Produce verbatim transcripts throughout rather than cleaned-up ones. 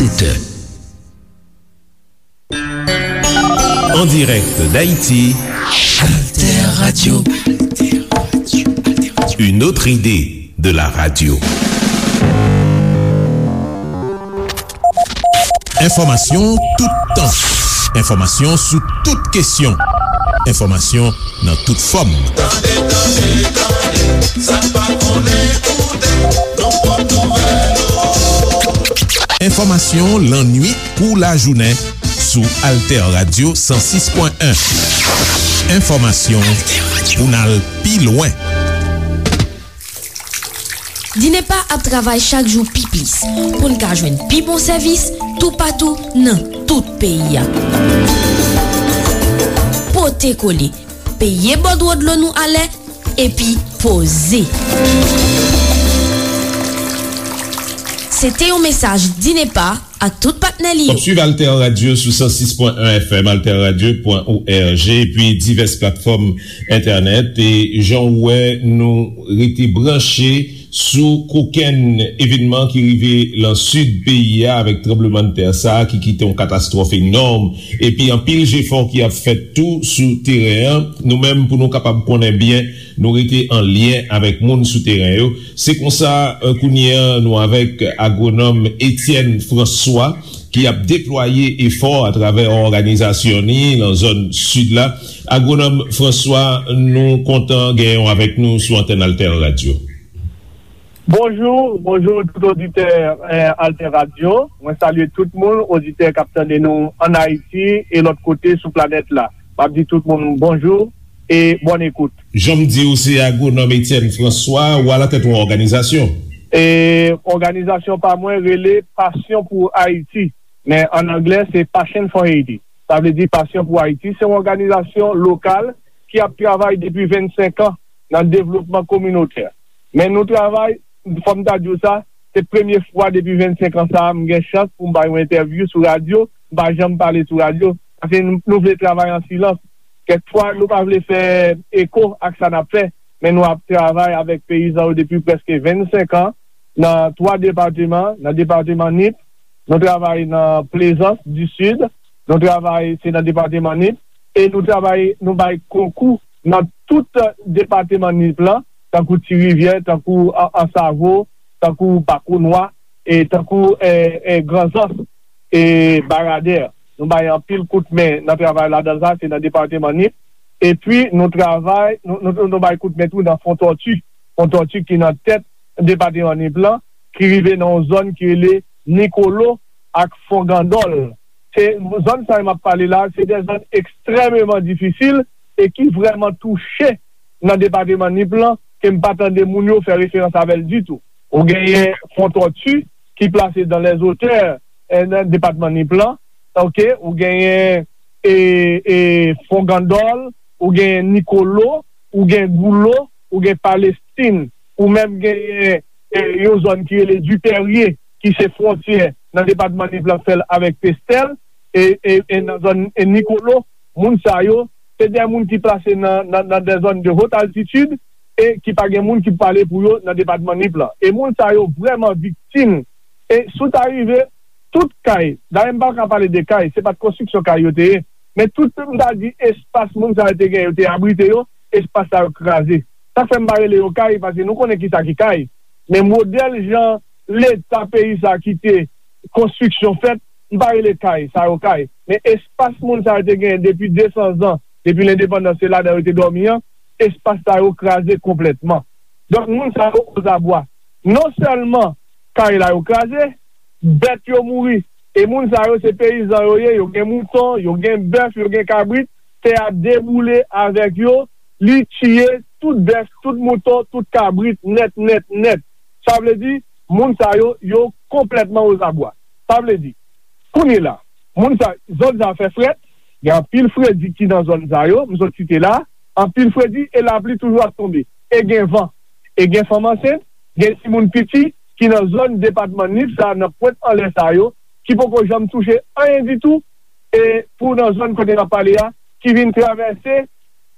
sept heures. En direct d'Haïti, Alter Radio. Une autre idée de la radio. Enfòmasyon toutan. Enfòmasyon sou tout kesyon. Enfòmasyon nan tout fòm. Tande, tande, tande, sa n pa konnen koute, nou pot nouvèl ou. Enfòmasyon lannwit kou lajounen sou Alter Radio san sis pwen en. Enfòmasyon pou n al pi lwen. Dinepa ap travay chak jou pi plis pou n ka jwenn pi bon sèvis toupatou nan tout peyi a. Pote kole, peye bòdwo dlo nou alè, epi poze. Se te yon mesaj Dinepa ak tout patnè li yo. W ap swiv Alter Radio sou san sis pwen en F M, alter radio pwen O R G, epi divès platfòm entènèt. E jan w wè, nou rete branche sou kokenn evènman ki rive lan sid peyi a, avèk tranblemanntè sa a ki kite yon katastwòf enòm. Epi anpil jefò ki ap fèt tou sou teren an. Nou menm, pou nou kapab konnen byen, nou rete an lyen avèk moun sou teren yo. Se konsa, eh, kounye a, nou avèk agwonòm Etienne François, ki ap deplwaye efò atravè òganizasyon li nan zòn sid la. Agwonòm François, nou kontan genyen w avèk nou sou antèn Alter Radio. Bonjou, bonjou tout oditè, eh, Alter Radio. Mwen salye tout moun, oditè k ap tande nou ann Ayiti e lòt kote sou planèt la. M ap di tout moun bonjou e bòn ekout. Jan m di w, se agwonòm Etienne François, ou alatèt yon òganizasyon. E òganizasyon pa mwen rele Passion pour Haïti, men ann anglè se Passion for Haiti. Sa vle di Passion pour Haïti, se yon òganizasyon lokal ki ap travay depi vennsenk an nan devlopman kominotè. Men nou travay, fò m ta di w sa, se premye fwa depi vennsenk an sa a, m gen chans pou m bay yon entèvyou sou radyo, m pa janm pale sou radyo, paske nou, nou vle travay an silans. Kèk fwa, nou pa vle fè eko ak sa n ap fè, men nou ap travay avèk peyizan yo depi prèske vennsenk an, nan twa depatman, nan depatman Nip, nou travay nan Plezans di Sid, nou travay, se nan depatman Nip, e nou travay, nou bay konkou nan tout depatman Nip lan, tankou Ti Rivyè, tankou An-, Ansavo, tankou Bakonwa, e tankou, e, e, Granzans, e, Baradè. Nou bay anpil kout men nan travay ladan sa, se nan depatman Nip. Epi nou travay, nou, nou, nou bay kout men tou nan Fon Tòti. Fon Tòti ki nan tèt depatman Nip lan, ki rive nan yon zòn ki rele Nikolo ak Fon Gandòl. Se, zòn sa yo m ap pale la, se de zòn ekstrèmeman difisil e ki vrèman touche nan depatman Nip lan, ke m pa tande moun yo fè referans avè l ditou. Ou genyen Fon Tòti ki plase dans les hauteurs, eh, nan depatman Nip lan, oke, ou genyen, e, e, Fon Gandòl, ou genyen Nikolo, ou gen Goulo, ou gen Palestin, ou menm genyen, e, yon zòn ki rele Dipèrye, ki se fwontyè nan depatman Nip lan k fè l avèk Pestèl, e, e, e nan zòn, e, Nikolo, moun sa yo, se de moun ki plase nan, nan, nan de zòn de haute altitude, e ki pa gen moun ki pale pou yo nan depatman Nip lan. E moun sa yo vrèman viktim. E si w ta rive, tout kay, dayè m pa ka pale de kay, se pa t konstriksyon kay yo te ye, men tout, m ta di, espas moun sa yo te gen, yo te abrite yo, espas sa yo kraze. Sa k fè m pa rele yo kay, paske nou konnen ki sa ki kay. Men modèl jan Leta peyi sa kite konstriksyon fèt, m pa rele kay sa yo kay. Men espas moun sa yo te genyen depi de san zan, depi lendepandans, se ladan yo te dòmi an, espas sa yo kraze konplètman. Donk, moun sa yo ozabwa. Non sèlman kay la yo kraze, bèt yo mouri. E moun sa yo se peyizan yo ye, yo gen mouton, yo gen bèf, yo gen kabrit, tè a deboule avèk yo, li tiye tout bèf, tout mouton, tout kabrit, nèt, nèt, nèt. Sa vle di, moun sa yo, yo konplètman ozabwa. Sa vle di, kounye la, moun sa, zòn sa fè frèt, gen anpil fredi ki nan zòn sa yo, m sot site la, anpil fredi e lapli toujou ap tonbe. E gen van, e gen fanm ansent, gen timoun piti ki nan zòn depatman Nip sa, nan pwent anlè sa yo, ki poko janm touche anyen ditou, e pou nan zòn kote n ap pale a, ki vin travèse,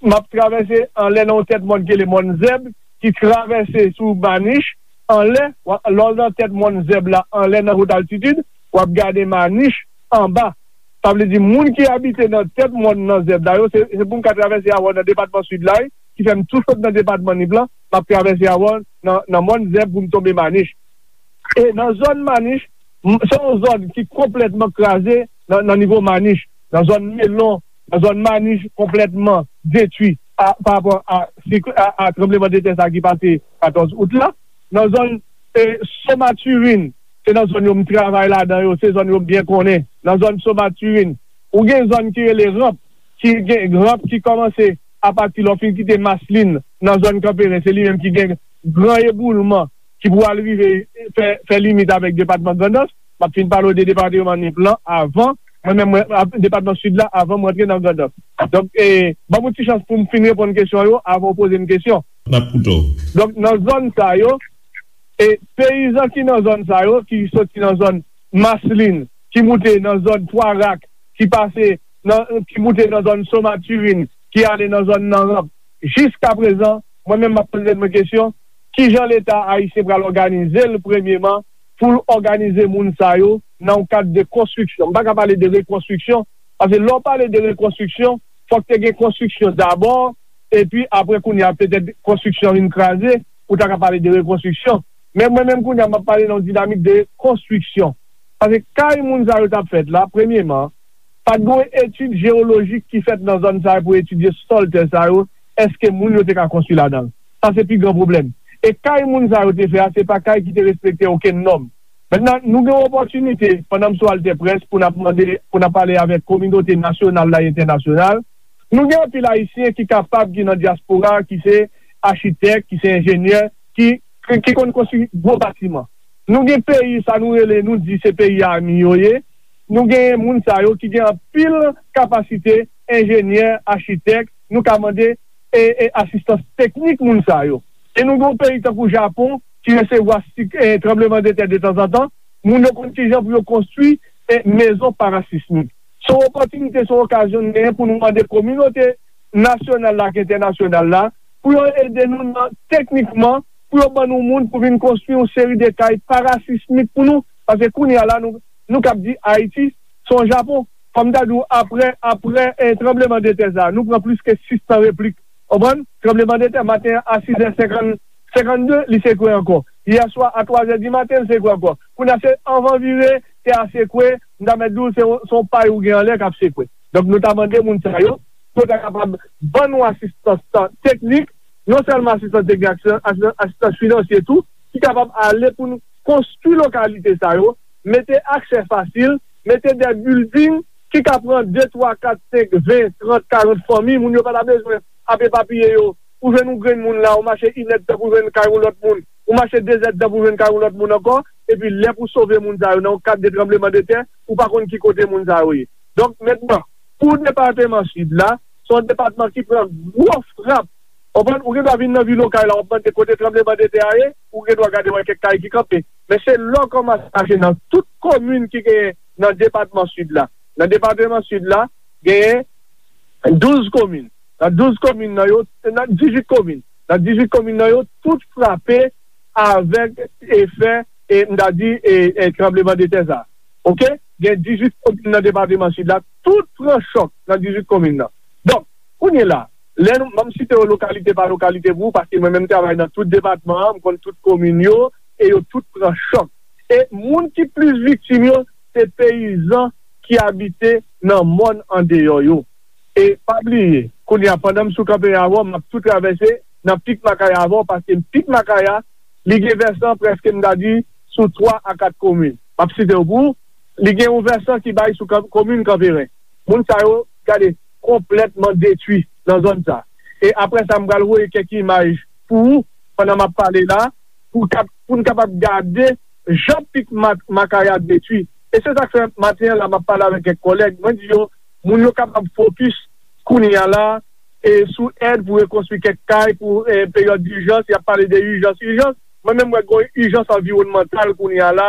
m ap travèse anlè nan yon tèt mòn ki rele Mòn Zèb, ki travèse sou Manich, anlè, lè w nan tèt Mòn Zèb la, anlè nan wot altitid, w ap gade Manich anba. Sa vle di, moun ki abite nan tèt mòn nan Zèb la yo, se, se pou m ka travèse avè w nan depatman Sid la, wi, ki fè m tou sot nan depatman Nip lan, m ap travèse avè w nan, nan mòn Zèb pou m tonbe Manich. E nan zòn Manich, m- se yon zòn ki konplètman kraze nan, nan nivo Manich. Nan zòn Melon, nan zòn Manich konplètman detwi a, pa rapò a, sik- a, a tranbleman de tè sa ki pase katòz out la. Nan zòn e, Somaturin, se nan zòn yo m travay ladan yo, se zòn yo m byen konnen. Nan zòn Somaturin, ou gen zòn ki rele Ranp, ki gen Ranp ki kòmanse apati lè w fin kite Maslin nan zòn Kanperen, se li menm ki gen gran eboulman ki pou al rive fè, fè limit avèk depatman Grandans. M ap fin pale w de depatman Nip lan avan, mwen menm, mwen, ap- depatman Sid la, avan mwen antre nan Grandans. Donk, e, ban m yon ti chans pou m fin reponn kesyon yo avan w poze m kesyon. N ap koute w. Donk, nan zòn sa yo, e peyizan ki nan zòn sa yo, ki soti nan zòn Maslin, ki moute nan zòn Twa Rak, ki pase nan, ki moute nan zòn Somaturin, ki ale nan zòn nan Ranp. Jiska prezan, mwen menm m ap poze mwen kesyon, kijan Leta ayisyen pral òganize l premyeman pou l òganize moun sa yo nan yon kad de konstriksyon. M pa ka pale de rekonstriksyon, paske lè w pale de rekonstriksyon, fòk te gen konstriksyon dabò, epi apre kounye a, petèt konstriksyon vin kraze, ou ta ka pale de rekonstriksyon. Men mwen menm kounye a, m ap pale nan yon dinamik de konstriksyon. Paske kay moun sa yo t ap fèt la, premyeman, pa t gen yon etid jewolojik ki fèt nan zòn sa yo pou etidye sòl tè sa yo, èske moun yo te ka konstwi ladan l? Sa se pi gran pwoblèm. E kay moun sa yo te fè a, se pa kay ki te respekte okenn nòm. Mentnan, nou gen yon opòtinite, pandan m sou Altè Près, pou n ap mande, pou n ap pale avèk kominote nasyonal la e entènasyonal. Nou gen anpil Ayisyen ki kapab, ki nan dyaspora, ki se achitèk, ki se enjenyè, ki, ki, ki konn konstwi gwo batiman. Nou gen peyi, sa nou rele, nou di se peyi ami yo ye. Nou gen moun sa yo ki gen anpil kapasite, enjenyè, achitèk, nou ka mande e, e asistans teknik moun sa yo. E nou gen yon peyi tankou Japon ki resevwa sik- e, tranbleman de tè de tanzantan, moun yo konn kijan pou yo konstwi e, mezon parasismik. Se yon opòtinite, se yon okazyon nou genyen pou nou mande kominote nasyonal la ak entènasyonal la pou yo ede nou nan teknikman, pou yo ban nou moun pou vin konstwi yon seri de kay parasismik pou nou. Paske kounye a la, nou, nou kab di Ayiti se yon Japon. Kòm m ta di w, apre, apre e, tranbleman de tè sa, nou pran plis ke sis san replik. Konprann? Tranbleman de tè, maten an, a sizè senkant, senkannde, li sekwe ankò. Yè swa, a twazè di maten, li sekwe ankò. Kounye a, se anvan vire, tè a sekwe, m ta mèt di w, se yon, se yon pay ou gen anlè k ap sekwe. Donk, nou ta mande moun sa yo, pou yo ta kapab ban nou asistans teknik, non sèlman asistans teknik, asistans, asistans, asistans finansye tou, ki kapab ale pou n konstwi lokalite sa yo, mete aksè fasil, mete de building ki ka pran de, twa, kat, senk, ven, trant, karant fanmi, moun yo pa ta bezwen ap epapiye yo. Ou jwenn yon grenn moun la, ou mache inèdtan pou jwenn kay yon lòt moun, ou mache dezèdtan pou jwenn kay yon lòt moun ankò, epi lè pou sove moun sa yo nan yon kad de tranbleman de tè, ou pa konn ki kote moun sa yo ye. Donk, mentnan, pou depatman Sid la, se yon depatman ki pran gwo frap. Konprann? Ou gen dwa vin nan vil Okay la, w ap mande kote tranbleman de tè a ye, ou gen dwa gade wè kèk kay ki kanpe. Men se lè w kòmanse mache nan tout komin ki genyen nan depatman Sid la. Nan depatman Sid la, genyen douz komin. Nan douz komin nan yo, nan dizuit komin. Nan dizuit komin nan yo, tout frape avèk efè, e, m ta di, e, e, tranbleman de tè sa. Oke? Gen dizuit komin nan depatman Sid la, tout pran chòk nan dizuit komin nan. Donk, kounye la, lè nou, ban m site yo lokalite pa lokalite pou ou, paske mwen menm m travay nan tout depatman an, m konn tout komin yo, e yo tout pran chòk. E moun ki plis viktim yo, se peyizan ki abite nan mòn andeyò yo. E pa bliye, kounye a, pandan m sou kanpe avè w, m ap tou travèse nan Pik Makaya avè w, paske Pik Makaya, li gen vèsan prèske, m ta di, sou twa a kat komin. M ap site yo pou ou. Li gen yon vèsan ki bay sou kan- komin Kanperen. Moun sa yo, gade, konplètman detwi nan zòn sa. E apre sa, m pral voye kèk imaj pou ou, pandan m ap pale la, pou, kap- pou n kapab gade jan Pik Ma- Makaya detwi. E se sa k fè maten an la, m ap pale avèk kèk kòlèg. Mwen di yo, moun yo kapab fokis kounye a la, e sou èd pou rekonstwi kèk kay pou e, peryòd dijans, y ap pale de ijans, ijans. Mwen menm, mwen gen yon ijans anviwònmantal kounye a la,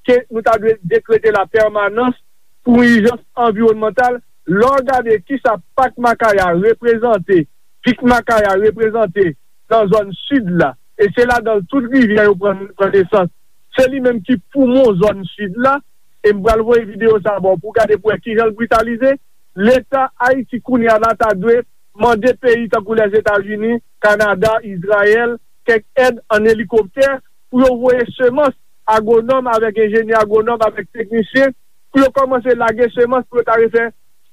ke nou ta dwe dekrete la pèmanans pou yon ijans anviwònmantal. Lè w gade kisa Pak Makaya reprezante, Pik Makaya reprezante nan zòn sid la, e se ladan l tout rivyè yo pran, pran nesans. Se li menm ki poumon zòn sid la, e m pral voye videyo sa a ba w pou w gade pou w wè kijan l britalize. Leta Ayiti kounye a la ta dwe mande peyi tankou Lèzetazini, Kanada, Izrayèl, kèk èd an elikoptè pou yo voye semans, agwonòm avèk enjenyè agwonòm avèk teknisyen, pou yo kòmanse lage semans pou yo ta refè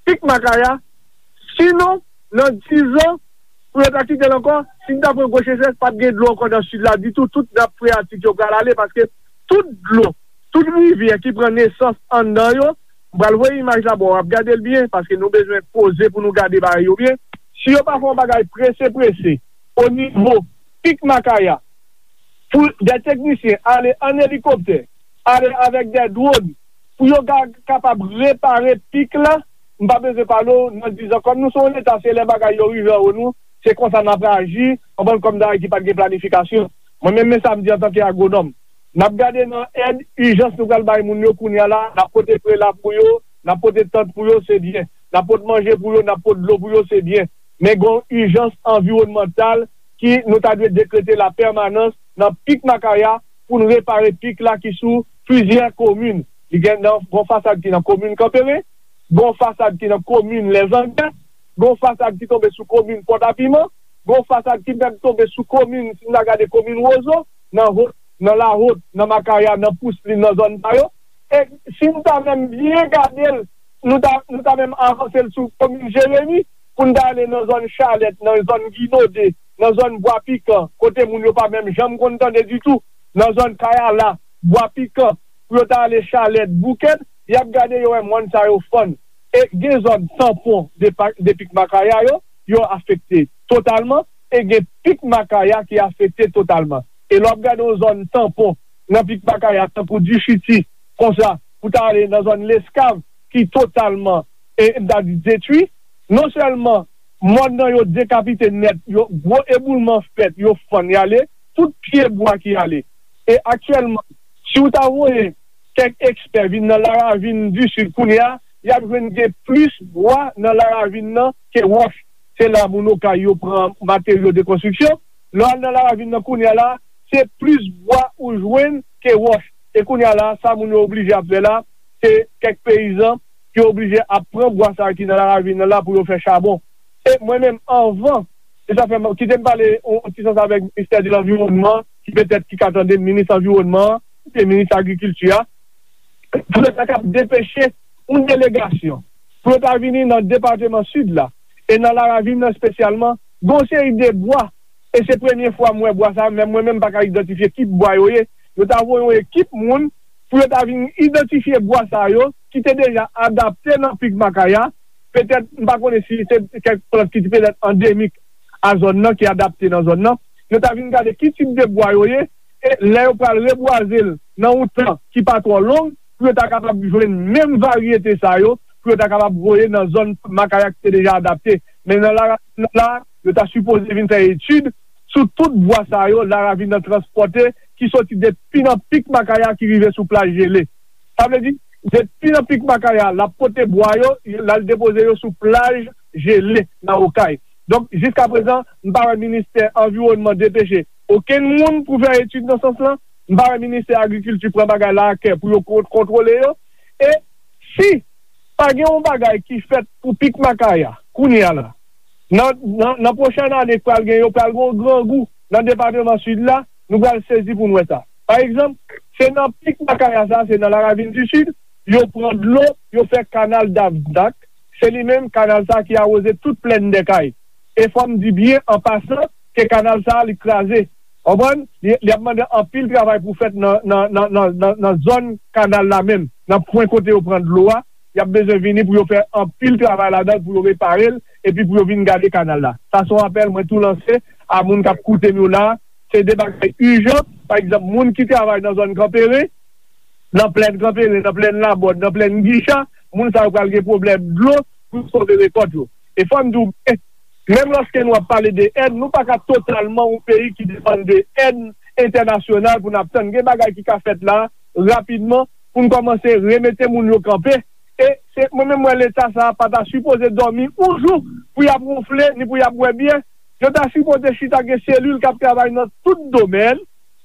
pik makaya. Sinon, nan dizan, pou yo ta kite l ankò, si n ta pran gwo sechès, p ap gen dlo ankò nan sid la ditou, tout nap freyatik yo pral ale, paske tout dlo, tout rivyè ki pran nesans anndan yo, m pral voye imaj la ba w, w ap gade l byen, paske nou bezwen poze pou nou gade bagay yo byen. Si yo pa fè yon bagay prese prese, o nivo pik makaya, pou de teknisyen ale an elikoptè, ale avèk de dwòn, pou yo ka kapab repare pik la, m pa bezwen pale w nan dizan. Kòm nou se yon leta, se lè bagay yo rive anwo nou, se konsa n ap aji, anbann kòm dayè ki pa t gen planifikasyon. Mwen menm, men sa m di antanke agwonòm. N ap gade nan èd ijans nou pral bay moun yo kounye a la, n ap pote prela pou yo, n ap pote tant pou yo, se byen. N ap pot manje pou yo, n ap pot dlo pou yo, se byen. Men gen yon ijans anviwònmantal ki nou ta dwe dekrete la pèmanans nan pik makaya pou n repare pik la ki sou plizyè komin. Li gen nan, gen yon fasad ki nan komin Kanperen, gen yon fasad ki nan komin Lèzangè, gen yon fasad ki tonbe sou komin Pòtapiman, gen yon fasad ki menm tonbe sou komin, si n ta gade komin Wozo, nan Wot, nan Lawot, nan Makaya, nan Pouslin, nan zòn sa yo. E si n ta menm byen gade l, nou ta, nou ta menm avanse l sou komin Jeremi, pou n ta ale nan zòn Chalèt, nan zòn Ginode, nan zòn Bwa Pikan, kote moun yo pa menm janm konn tande ditou, nan zòn Kayala, Bwa Pikan, pou yo ta ale Chalèt, Bouken, y ap gade yo wè mòn sa yo fann. E gen zòn tanpon de pa-, de pik makaya yo, yo afekte totalman, e gen pik makaya ki afekte totalman. E lè w ap gade yon zòn tanpon nan pik makaya, tankou Dichiti, konsa, pou ta ale nan zòn Leskav, ki totalman, e, m ta di, detwi, non sèlman mòn nan yo dekapite nèt, yo, gwo eboulman fèt, yo fann y ale, tout pye bwa ki ale. E aktyèlman, si w ta voye kèk ekspè vin nan Laravin di Sid kounye a, y ap jwenn gen plis bwa nan Laravin nan ke wòch. Se la moun Okay yo pran materyo de konstriksyon. Lè w al nan Laravin nan kounye a la, se plis bwa ou jwenn ke wòch. E kounye a la, sa moun yo oblije ap fè la, se kèk peyizan ki oblije ap pran bwa sa a ki nan Laravin nan la pou yo fè chabon. E mwen menm, anvan, e sa fè m, kite m pale yon, yon ti sans avèk ministè de lanviwònman, ki petèt ki ka tande m, minis anviwònman an, oubyen minis agrikilti a, pou yo ta kab depeche yon delegasyon, pou yo ta vini nan depatman Sid la, e nan Laravin nan espesyalman, gen yon seri de bwa, e se premye fwa m wè bwa sa a, menm mwen menm m pa ka idantifye ki bwa yo ye. Yo ta voye yon ekip moun pou yo ta vin idantifye bwa sa yo, ki te deja adapte nan pik makaya, petèt, m pa konnen si se kèk plant ki te petèt andemik a zòn nan, ki adapte nan zòn nan. Yo ta vin gade ki tip de bwa yo ye, e lè yo pral rebwaze l nan yon tan ki pa twò long, pou yo ta kapab jwenn menm varyete sa yo, pou yo ta kapab voye nan zòn makaya ki te deja adapte. Men nan la, la, yo ta sipoze vin fè etid sou tout bwa sa yo, Laravin nan transpòte, ki soti depi nan pik makaya ki rive sou plaj jele. Sa vle di, depi nan pik makaya, l ap pote bwa yo, l al depoze yo sou plaj jele nan Okay. Donk, jiskaprezan, m pa wè ministè anviwònman depeche okenn moun pou fè etid nan sans lan. M pa wè ministè agrikilti pran bagay la a kè pou yo kon-, kontwole yo. E si pa gen yon bagay ki fèt pou pik makaya, kounye a la, nan, nan, nan pwochèn ane k pral gen, yo pral gen yon grangou nan depatman Sid la, nou pral sezi pou n wè sa. Pa egzanp, se nan pik makaya sa, se nan Laravin di Sid, yo pran dlo, yo fè kanal Davdak, se li menm kanal sa ki awoze tout plèn Dèkay. E fò m di byen an pasan ke kanal sa li kraze. Konprann? Li, li ap mande anpil travay pou fèt nan, nan, nan, nan, nan, nan zòn kanal la menm, nan pwen kote yo pran dlo a. Y ap bezwen vini pou yo fè anpil travay ladan l, pou yo repare l, epi pou yo vin gade kanal la. Sa se yon apèl mwen tou lanse a moun k ap koute m yo la. Se de bagay ijan. Pa egzanp, moun ki travay nan zòn Kanperen, nan plèn Kanperen, nan plèn Labòd, nan plèn Gicha, moun sa yo pral gen pwoblèm dlo pou sove rekòt yo. E fò m di w byen, menm lòske nou ap pale de èd, nou pa ka totalman yon peyi ki depann de èd entènasyonal pou n ap tann. Gen bagay ki ka fèt la, rapidman, pou n kòmanse remete moun yo kanpe. E se, mwen menm, mwen, Leta sa a pa ta sipoze dòmi yon jou pou y ap wonfle, ni pou y ap bwè byè. Yo ta sipoze chita, gen selil k ap travay nan tout domèn,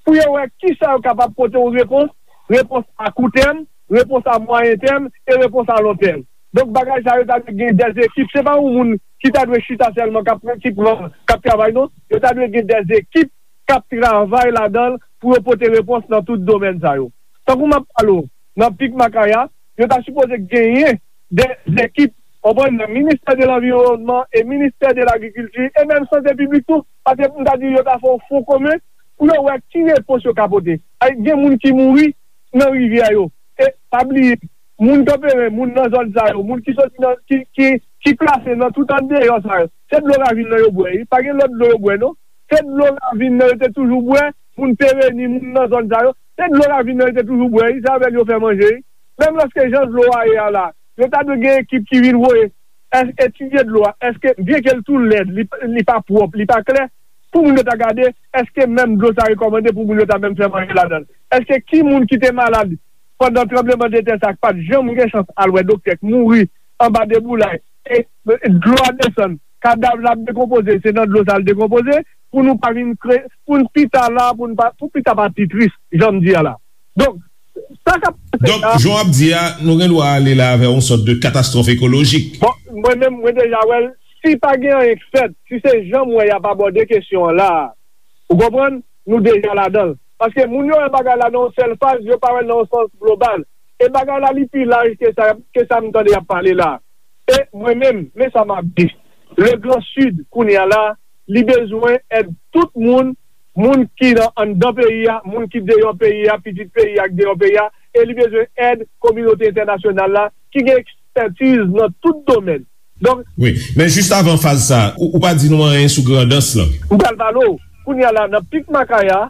pou yo wè kisa yo kapab pote yon repons, repons a kou tèm, repons a mwayen tèm e repons a lon tèm. Donk, bagay sa yo ta dwe gen dèz ekip. Se pa yon moun ki ta dwe chita sèlman k ap, ki pran, k ap travay, non. Yo ta dwe gen dèz ekip k ap travay ladan l pou yo pote repons nan tout domèn sa yo. Tankou m ap pale w, nan Pik Makaya, yo ta sipoze genyen dèz ekip, w konprann, nan Ministè de Lanviwònman e Ministè de Lagrikilti e menm Sante Piblik tou, paske m ta di yo ta fè yon fon komen pou yo wè ki repons yo ka pote. Ay, gen moun ki mouri nan rivyè yo. E pa bliye, moun Kanperen, moun nan zòn sa yo, moun ki soti nan, ki, ki, ki plase nan tout andeyò sa yo, se dlo ravin nan yo bwè, wi. Pa gen lòt dlo yo bwè, non. Se dlo ravin nan yo te toujou bwè, moun Pereni, moun nan zòn sa yo, se dlo ravin nan yo te toujou bwè, wi. Se avè l yo fè manje, wi. Menm lòske jan dlo a ye a la, yo ta dwe gen ekip ki vin voye es-, etidye dlo a, èske, byenke l tou lèd, li, li pa pwòp, li pa klè, pou moun yo ta gade, èske menm dlo sa rekòmande pou moun yo ta menm fè manje ladan l? Èske ki moun ki te malad pandan tranblemanntè sa k pa t janm gen chans al wè doktè, k mouri anba deboulay, e, e dlo a desann, kadav la ap dekonpoze, se nan dlo sa l dekonpoze, pou nou pa vin kre-, pou n pita la, pou n pa, pou pita pa pi tris, jan m di a la. Donk, sa k ap pase Donk, la, jan w ap di a, nou gen dwa ale la avè yon sòt de katastwòf ekolojik. Bon, mwen menm, mwen deja wè l, si pa gen anyen k fèt, si se jan m wè y ap abòde kesyon an la, ou konprann, nou deja ladan l. Paske moun yo wè bagay la nan yon sèl faz, yo pa wè l nan yon sans global. E bagay la, li pi laj ke sa, ke sa m tande y ap pale la. E mwen menm, men sa m ap di. Le Grand Sud, kounye a la, li bezwen èd tout moun, moun ki nan anndan peyi a, moun ki deyò peyi a, pitit peyi a k deyò peyi a, e li bezwen èd kominote entènasyonal la, ki gen ekspètiz nan tout domèn. Donk, Wi, men jis avan faz sa, ou, ou pa di nou anyen sou Grandans lan. M pral pale w. Kounye a la, nan Pik Makaya,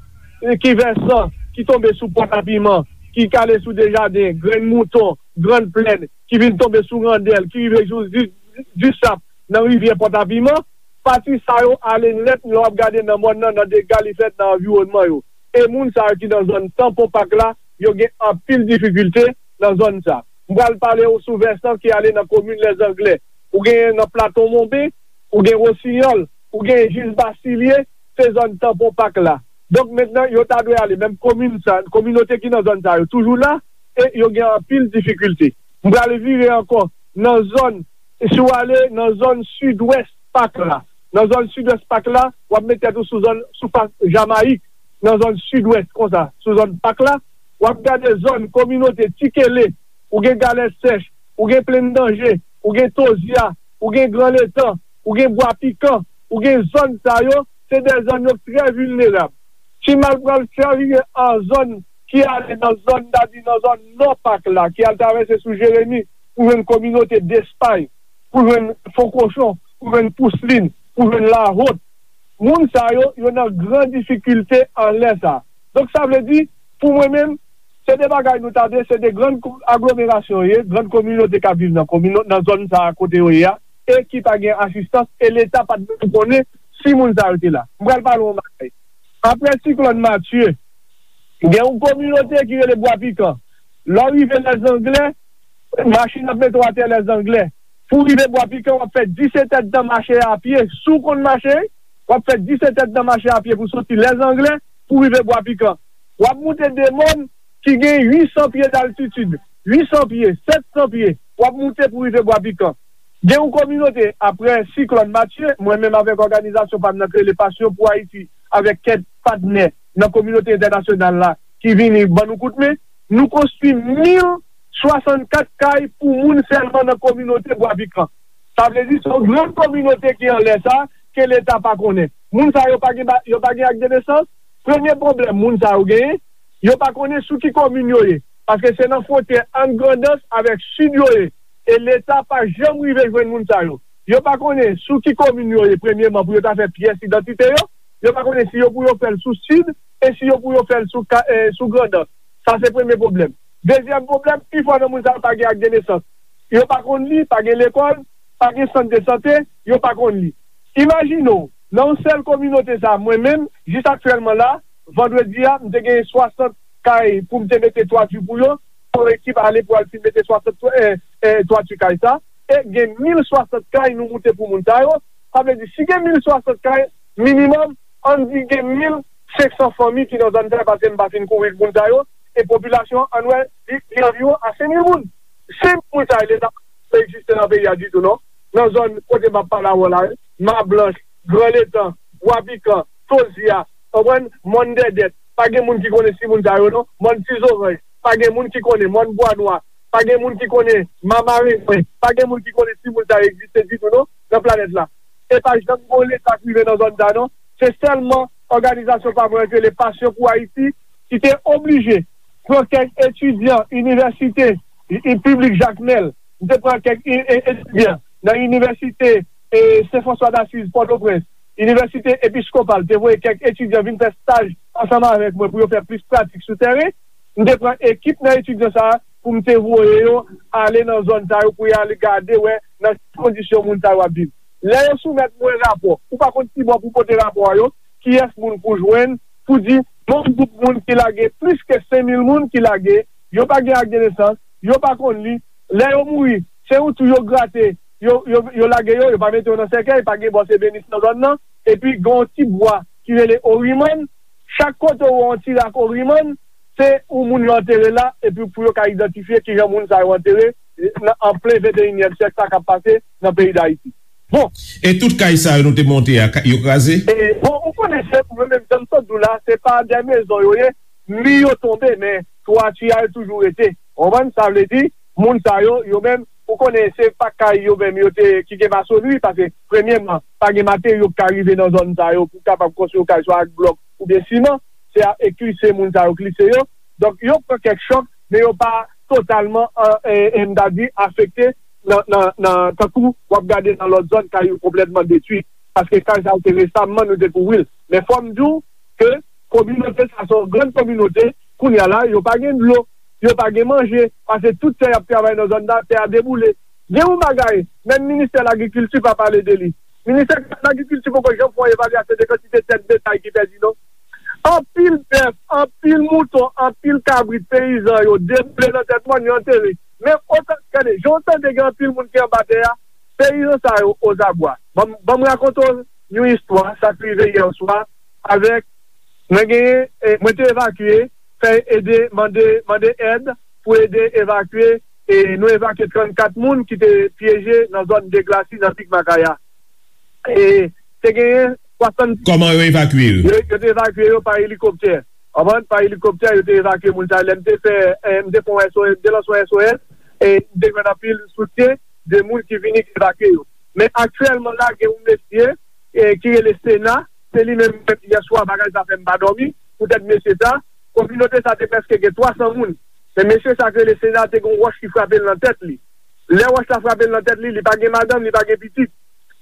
ki vèsan, ki tonbe sou Pòtapiman, ki kale sou Dejaden, Grenn Mouton, Grann Plèn, ki vin tonbe sou Randèl, ki rive jous Di-, Disap, nan rivyè Pòtapiman, pati sa yo ale nèt, lè w ap gade nan mòn nan, nan dega li fèt nan anviwònman yo. E moun sa yo ki nan zòn Tanpon Pak la, yo gen anpil difikilte nan zòn sa. M pral pale w sou vèsan ki ale nan komin Lèzanglè. Ou genyen nan Plato Monben, ou gen Wosinyòl, ou genyen jis Basilye, se zòn Tanpon Pak la. Donk, mentnan, yo ta dwe ale, menm komin sa, kominote ki nan zòn sa yo toujou la, e yo gen anpil difikilte. M pral vire ankò nan zòn, si w ale nan zòn sidwès Pak la, nan zòn sidwès Pak la, w ap met tèt ou sou zòn, sou fas Jamayik, nan zòn sidwès konsa, sou zòn Pak la, w ap gade zòn kominote Tikele, ou gen Galèt Sèch, ou gen Plenn Danje, ou gen Tozya, ou gen Gran Letan, ou gen Bwa Pikan, ou gen zòn sa yo, se de zòn yo trè vilnerab. Ti Mal pral chavire an zòn ki ale nan zòn, n ta di nan zòn nò Pak la, ki al travèse sou Jeremi pou jwenn kominote Despay, pou jwenn Fon Kochon, pou jwenn Pouslin, pou jwenn Lahot. Moun sa yo, yo nan gran difikilte anlè sa. Donk, sa vle di, pou mwen menm, se de bagay nou ta de, se de grann ko-, aglomerasyon yo ye, grann kominote k ap viv nan komino-, nan zòn sa a kote yo ye a, e ki pa gen asistans, e Leta pa t menm konnen si moun sa yo te la. M pral pale w yon bagay. Apre siklòn Matye, gen yon kominote ki rele Bwa Pikan. Lè w rive Lèzanglè, machin ap mete w atè Lèzanglè. Pou w rive Bwa Pikan, w ap fè disèt èdtan mache a pye. Si w konn mache, w ap fè disèt èdtan mache a pye pou soti Lèzanglè pou w rive Bwa Pikan. W ap moute de mòn ki gen uit san pye d'altitid, uit san pye, sèt san pye, w ap moute pou w rive Bwa Pikan. Gen yon kominote, apre siklòn Matye, mwen menm avèk òganizasyon pa m nan k rele Passion pour Haïti, avèk kèk patnè nan kominote entènasyonal la ki vini ban nou kout men, nou konstwi mil swasannkat kay pou moun sèlman nan kominote Bwa Pikan. Sa vle di, se yon gran kominote ki anlè sa, ke Leta pa konnen. Moun sa yo pa gen ba-, yo pa gen ak de nesans. Premye pwoblèm moun sa yo genyen, yo pa konnen sou ki komin yo ye. Paske se nan fwontyè ant Grandans avèk Sid yo ye. E Leta pa janm rive jwenn moun sa yo. Yo pa konnen sou ki komin yo ye, premyeman, pou yo ta fè pyès idantite yo. Yo pa konnen si yo pou yo fè l sou Sid e si yo pou yo fè l sou ka-, eh, sou Grandans. Sa se premye pwoblèm. Dezyèm pwoblèm, pifò nan moun sa yo pa gen ak de nesans. Yo pa konn li, pa gen lekòl, pa gen sant de sante, yo pa konn li. Imajine w, nan yon sèl kominote sa, mwen menm, jis aktyèlman la, vandredi a, m te gen swasant kay pou m te mete twati pou yo, yon ekip ale pou al fin mete swasant twa-, eh, eh, twati kay sa, e gen mil swasant kay nou moute pou moun sa yo. Sa vle di, si gen mil swasant kay, minimòm, ann di gen mil senk san fanmi ki nan zòn sa yo, paske m pa fin kouvri moun sa yo, e popilasyon an, ann wè, li, li anviwon a senk mil moun. Senk mil moun sa yo, Leta pa egziste nan peyi a ditou, non. Nan zòn kote m ap pale avè w la, Mablanch, Gran Letan, Bwa Pikan, Tozya, konprann, Mòn Dèdèt, pa gen moun ki konnen si moun sa yo, non. Mòn Ti Zoranj, pa gen moun ki konnen, Mòn Bwa Nwa, pa gen moun ki konnen, Mamarengwen, pa gen moun ki konnen si moun sa yo egziste ditou, non, nan planèt la. E pa janm gen yon Leta ki rive nan zòn sa, non. Se sèlman òganizasyon pa mwen ki rele Passion pour Haïti ki te oblije pran kèk etidyan inivèsite, i, i, piblik Jakmèl. M te pran kèk i, e, etidyan nan inivèsite, e, Sen Franswa Dasiz, Pòtoprens, inivèsite Episkopal, te voye kèk etidyan vin fè staj ansanm avèk mwen pou yo fè plis pratik sou tèren. M te pran ekip nan etidyan sa a pou m te voye yo ale nan zòn sa yo pou y al gade wè nan ki kondisyon moun sa yo ap viv. Lè yo soumèt mwen rapò, ou pa konn ki bò pou pote rapò a yo, kiyès moun pou jwenn, pou di, yon gwoup moun ki lage plis ke senk mil moun ki lage, yo pa gen ak de nesans, yo pa konn li. Lè yo mouri, se yon twou yo grate, yo, yo, yo lage yo, yo pa mete yo nan sèkèy, pa gen bò se benis nan zòn nan. Epi gen yon ti bwa ki rele Orimann. Chak kote ou wè yon ti rak Orimann, se yon moun yo antere la, epi pou yo ka idantifye kijan moun sa yo antere, nan, an plen venteyinyèm syèk sa k ap pase nan peyi Dayiti. Bon. E tout kay sa yo nou te monte a, ka- yo kraze? E, bon, ou konnen se, mwen menm, jan m sot di w la, se pa de mezon yo ye, mi yo tonbe, men twati a yo toujou rete. Ou konprann? Sa vle di, moun sa yo, yo menm, ou konnen se pa kay yo menm yo te, ki gen masonri, paske, premyèman, pa gen materyo ki ka rive nan zòn sa yo pou kapab konstwi yon kay, swa ak blòk oubyen siman, se a, e klise moun sa yo klise yo. Donk, yo pran kèk chòk, men yo pa totalman, e, e, m ta di, afekte nan, nan, nan, tankou w ap gade nan lòt zòn, kay yo konplètman detwi. Paske kay sa yo te resamman, nou te kouvri l. Men fò m di w ke kominote sa se yon grann kominote, kounye a la, yo pa gen dlo, yo pa gen manje, paske tout tè y ap travay nan zòn nan, tè a deboule. Gen yon bagay, menm ministè lagrikilti pa pale de li. Ministè lagrikilti poko janm fè yon evalyasyon de kantite tèt betay ki pèdi, non. Anpil bèf, anpil mouton, anpil kabrit peyizan yo deboule nan tèt mòn, yo antere. Men otan, gade, jan w tande gen anpil moun ki anba tè a, peyizan sa yo ozabwa. Ban m, ban m rakonte w yon istwa, sa k rive yè swa, avèk, mwen genyen, e, mwen te evakye, fè ede, mande, mande èd pou ede evakye, e nou evakye trannkat moun ki te pyeje nan zòn Deglasi, nan Pik Makaya. E te genyen swasanndiz Kòman yo evakye yo? Yo, yo te evakye yo pa elikoptè. Konprann? Pa elikoptè, yo te evakye moun sa yo. Lè m te fè, e, m te fè yon S O S, m te lanse yon S O S, e m te jwenn anpil soutyen de moun ki vini evakye yo. Men aktyèlman la, gen yon mesye, e, ki rele Sena, se li menm, yè swa, bagay sa fè m pa dòmi, poutèt mesye sa, kominote sa te prèske gen twa san moun. Men mesye sa ki rele Sena te gen yon wòch ki frape l nan tèt li. Lè wòch la frape l nan tèt li, li pa gen madanm, li pa gen pitit.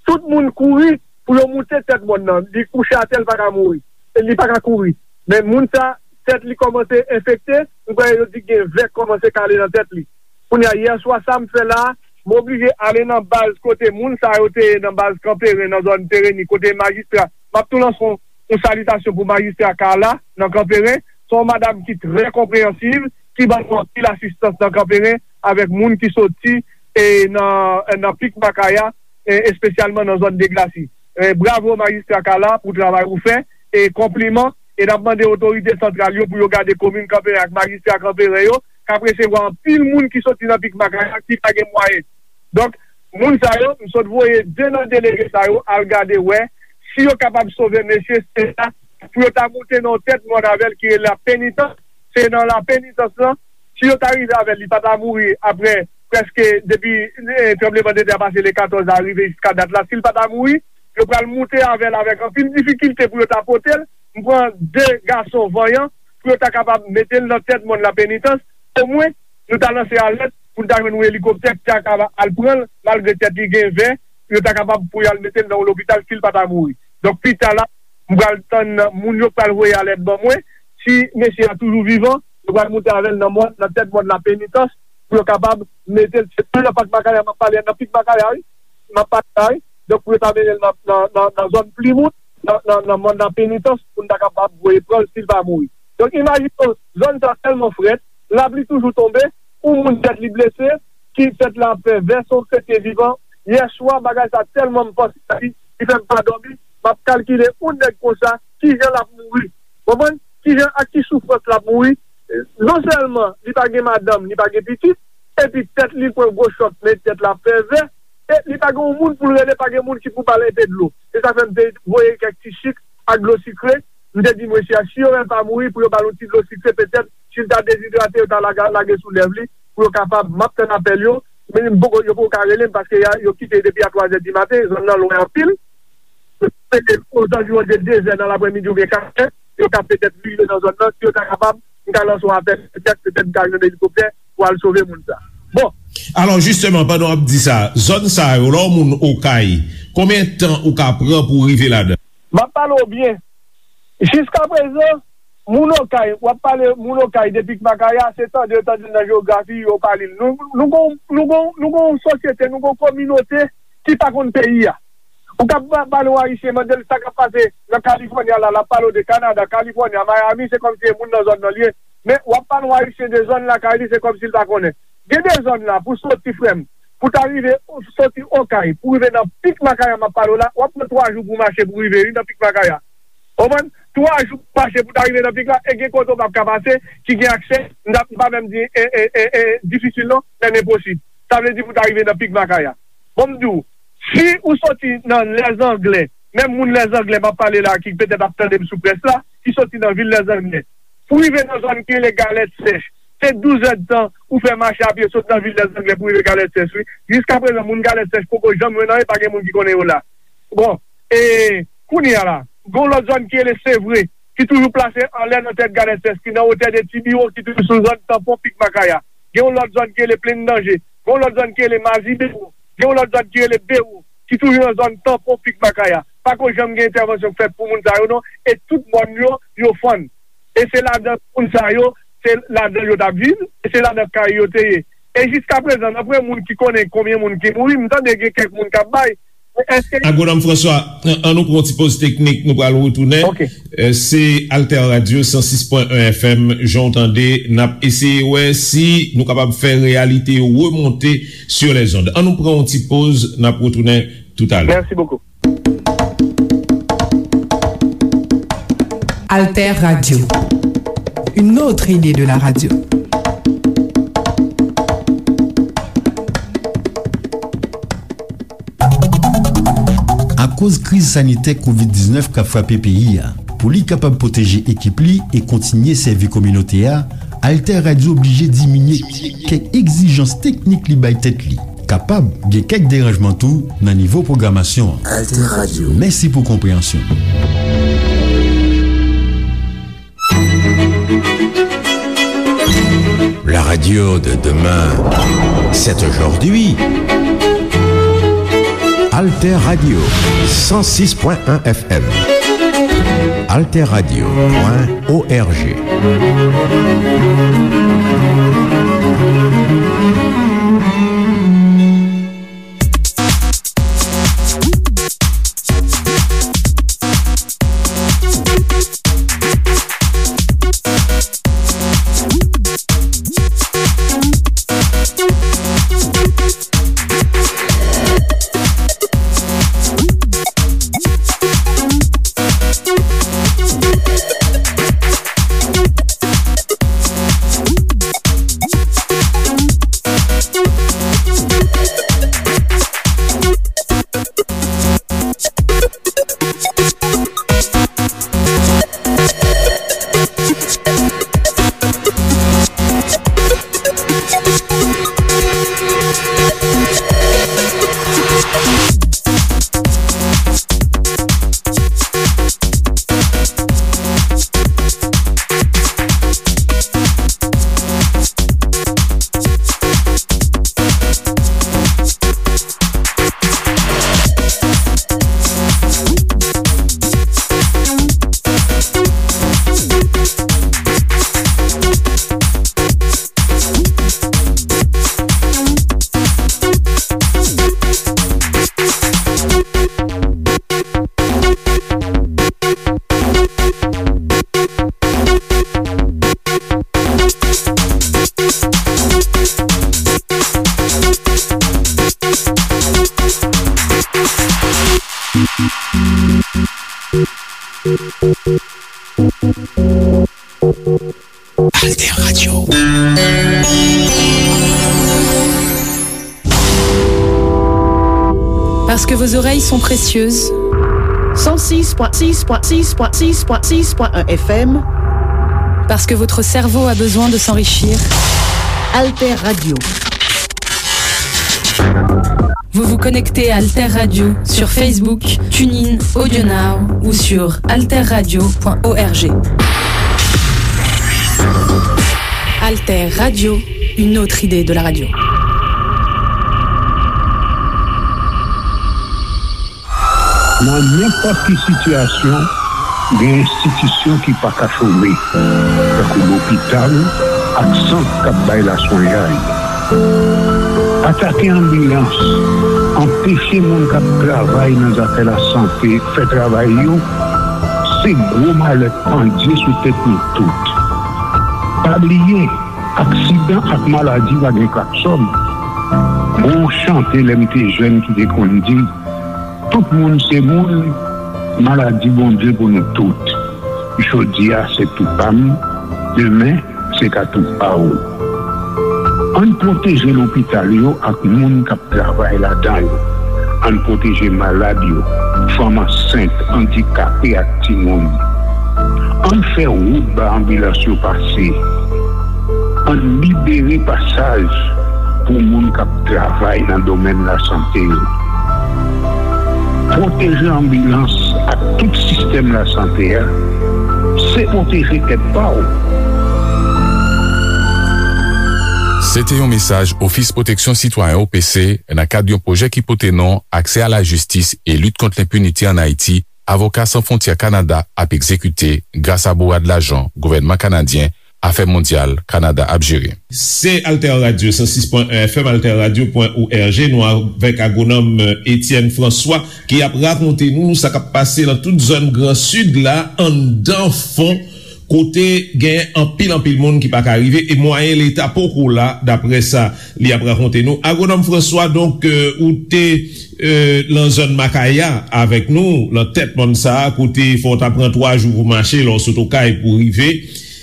Tout moun kouri pou yo moute tèt mòn nan. Li kouche atè, li pa ka mouri. E li pa ka kouri. Men moun sa, tèt li kòmanse enfekte, m kwè yo di gen vè k kòmanse kale nan tèt li. Kounye a, yè swa, sa m fè la, m oblije ale nan baz kote moun sa yo te ye nan baz Kanperen, nan zòn Pereni, kote majistra. M ap tou lanse yon, yon salitasyon pou majistra Carla nan Kanperen. Se yon madanm ki trè konpreyansiv, ki ban nou anpil asistans nan Kanperen avèk moun ki soti, e, nan, nan Pik Makaya, e, espesyalman nan zòn Deglasi. E, bravo majistra Carla pou travay ou fè, e konpliman, e n ap mande otorite santral yo pou yo gade komin Kanperen ak majistra Kanperen yo, k ap resevwa anpil moun ki soti nan Pik Makaya ki pa gen mwayen. Donk, moun sa yo, m sot voye de nan delege sa yo al gade wè si yo kapab sove mesye Sena pou yo ta moute nan yon tèt mòn avè l ki rele Lapenitans. Se nan Lapenitans lan, si yo ta rive avè l, li pa ta mouri apre prèske depi, e, tranblemanntè a pase le katòz a rive jiska dat la. Si l pa ta mouri, yo pral moute avè l avèk anpil difikilte pou yo ta pote l. M pran de gason vanyan pou yo ta kapab mete l nan tèt mòn Lapenitans. Omwen, nou ta lanse alèt pou n ta jwenn yon elikoptè ki ta kapab al pran l, malgre tèt li gen vè, yo ta kapab pou y al mete l nan yon lopital si l pa ta mouri. Donk, pita la, m pral tann moun yo k pral voye alèt ban mwen. Si mesye a toujou vivan, yo pral moute avè l nan mòn, nan tèt mòn Lapenitans, pou yo kapab mete l, se pa nan Pak Makaya m ap pale a, nan Pik Makaya, wi, m ap pale la, wi. Donk, pou yo ta mennen l nan, nan, nan, nan zòn Plimout, nan, nan, nan mòn Lapenitans, pou n ta kapab voye pran l si l pa mouri. Donk, imajine w, zòn sa tèlman frèt, lapli toujou tonbe, yon moun tèt li blese, ki tèt la ap fè vè, se yon kretyen vivan. Yè swa, bagay sa tèlman m panse a li, li fè m pa dòmi, m ap kalkile yon nèg konsa, kijan l ap mouri. Konprann? Kijan, ak ki soufrans l ap mouri? Non sèlman li pa gen madanm, li pa gen pitit, epi tèt li pran gwo chòk, men tèt la fè vè, e li pa gen yon moun pou l rele, pa gen moun ki pou ba l enpe dlo. Se sa fè m te voye kèk ti chik ak dlo sikre. M te di mesye a, si yo wè l pa mouri, pou yo ba l yon ti dlo sikre, petèt, si l ta dezidrate, yo ta laga-, lage sou lèv li, pou yo kapab, m ap tann apèl yo, men m poko, yo poko ka rele m, paske ya, yo kite depi a twa zè di maten, zòn nan lwen anpil. Se ke ozanviwon de de zè nan laprèmidi oubyen kat zè, yo ka petèt rive nan zòn nan, si yo ta kapab, m ka lanse yon apèl, petèt, petèt m ka jwenn elikoptè pou al sove moun sa. Bon. Alò, jisteman, pandan w ap di sa, zòn sa yo, lè w moun Okay, konbyen tan ou ka pran pou w rive ladan? M ap pale w byen. Jiskaprezan, moun Okay, w ap pale moun Okay de Pik Makaya, se tande yo tande l nan jewografi, yo pa li l. Nou, nou gon, nou gon, nou gon sosyete, nou gon kominote ki pa konn peyi a. Ou ka pa-, pale yon Ayisyen, mande l sa k ap pase nan Kalifòni a la, l ap pale w de Kanada, Kalifòni a, Miami, se kòmsi e moun nan zòn nan li ye. Men w ap pale yon Ayisyen de zòn lakay li, se kòmsi l pa konnen. Gen de zòn la, pou soti, frè m, pou ta rive, soti Okay, pou rive nan Pik Makaya m ap pale w la, w ap pran twa jou pou mache pou rive, wi, nan Pik Makaya. Ou konprann? Twa jou pou mache pou ta rive nan pik la, e gen kote w p ap ka pase, ki gen aksè, m ta, m pa menm di, e, e, e, e, difisil non, men enposib. Sa vle di pou ta rive nan Pik Makaya. Bon, m di w, si ou soti nan Lèzanglè, menm moun Lèzanglè m ap pale la, ki petèt ap tande m sou près la, ki soti nan vil Lèzanglè, pou rive nan zòn ki rele Galèt Sèch, se douz èdtan ou fè mache apye sot nan vil Lèzanglè pou rive Galèt Sèch, wi. Jiskaprezan, moun Galèt Sèch poko janm jwenn anyen, pa gen moun ki konnen yo la. Bon, e kounye a la, gen yon lòt zòn ki rele Sevre, ki toujou plase anlè nan tèt Galèt Sèch, ki nan wotè de Ti Biwo, ki toujou sou zòn tanpon Pik Makaya. Gen yon lòt zòn ki rele Plenn Danje. Gen yon lòt zòn ki rele Mazi Bewo. Gen yon lòt zòn ki rele Bewo, ki toujou nan zòn tanpon Pik Makaya. Pako janm gen entèvansyon k fèt pou moun sa yo non, e tout mòn yo, yo fann. E se ladan moun sa yo, se ladan yo t ap viv, e se ladan kay yo te ye. E jiskaprezan, nan premye moun ki konnen konbyen moun ki mouri, m tande gen kèk moun k ap bay. Men èske Agwonòm François, an, an nou pran yon ti poz teknik, nou pral retounen. Ok. Euh, se Alter Radio san sis pwen en F M, jan w tande, n ap eseye wè si nou kapab fè reyalite yo remonte sur les ondes. An nou pran yon ti poz, n ap retounen toutalè. Merci beaucoup. Alter Radio, une autre idée de la radio. Akoz kriz sanitè kovid diznèf k ap frape peyi a, pou li kapab pwoteje ekip li e kontinye sèvi kominote a, Alter Radio oblije diminye kèk egzijans teknik li bay tèt li. Kapab gen kèk deranjman tou nan nivo pwogramasyon an. Alter Radio. Mèsi pou konpreyansyon. La radio de demain, c'est aujourd'hui. Alter Radio, san sis pwen en F M. Alter Radio pwen O R G. Parce que vos oreilles sont précieuses. cent six point six point six point six point six point un F M. Parce que votre cerveau a besoin de s'enrichir. Alter Radio. Vous vous connectez à Alter Radio sur Facebook, TuneIn, AudioNow ou sur alter radio point org. Alter Radio, une autre idée de la radio. Nan nenpòt ki sitiyasyon, gen enstitisyon ki pa ka chome, tankou lopital ak sant k ap bay laswenyay. Atake anbilans, anpeche moun k ap travay nan zafè lasante fè travay yo, se gwo malè k pandye sou tèt nou tout. Pa bliye, aksidan ak maladi pa gen klaksòn. Gon chante lè m te jèn ki te konn di, tout moun se moun, maladi Bondye pou nou tout. Jodi a se tou pa m, demen se ka tou pa w. Ann pwoteje lopital yo ak moun k ap travay ladan yo. Ann pwoteje malad yo, fanm ansent, andikape ak timoun. Ann fè wout ba anbilans yo pase. Ann libere pasaj pou moun k ap travay nan domèn lasante yo. Pwoteje anbilans ak tout sistèm lasante a, se pwoteje tèt pa w. Se te yon mesaj Ofis Pwoteksyon Sitwayen, O P C, nan kad yon pwojè ki pote non Aksè a la Jistis e Lit Kont Lenpinite ann Ayiti, Avoka San Fwontyè Kanada ap egzekite gras a bourad lajan gouvènman kanadyen, Afè Mondyal Kanada ap jere. Se Alter Radio san sis pwen en F M, alter radio pwen org. Nou avèk agwonòm, euh, Etienne François ki ap rakonte nou sa k ap pase nan tout zòn Gran Sid la, anndan fon, kote gen anpil, anpil moun ki pa ka rive e mwayen Leta poko la, daprè sa li ap rakonte nou. Agwonòm François, donk, euh, ou te, euh, nan zòn Makaya avèk nou, nan tèt mòn sa a, kote fò w ta pran twa jou pou mache, lè w sot Okay pou rive.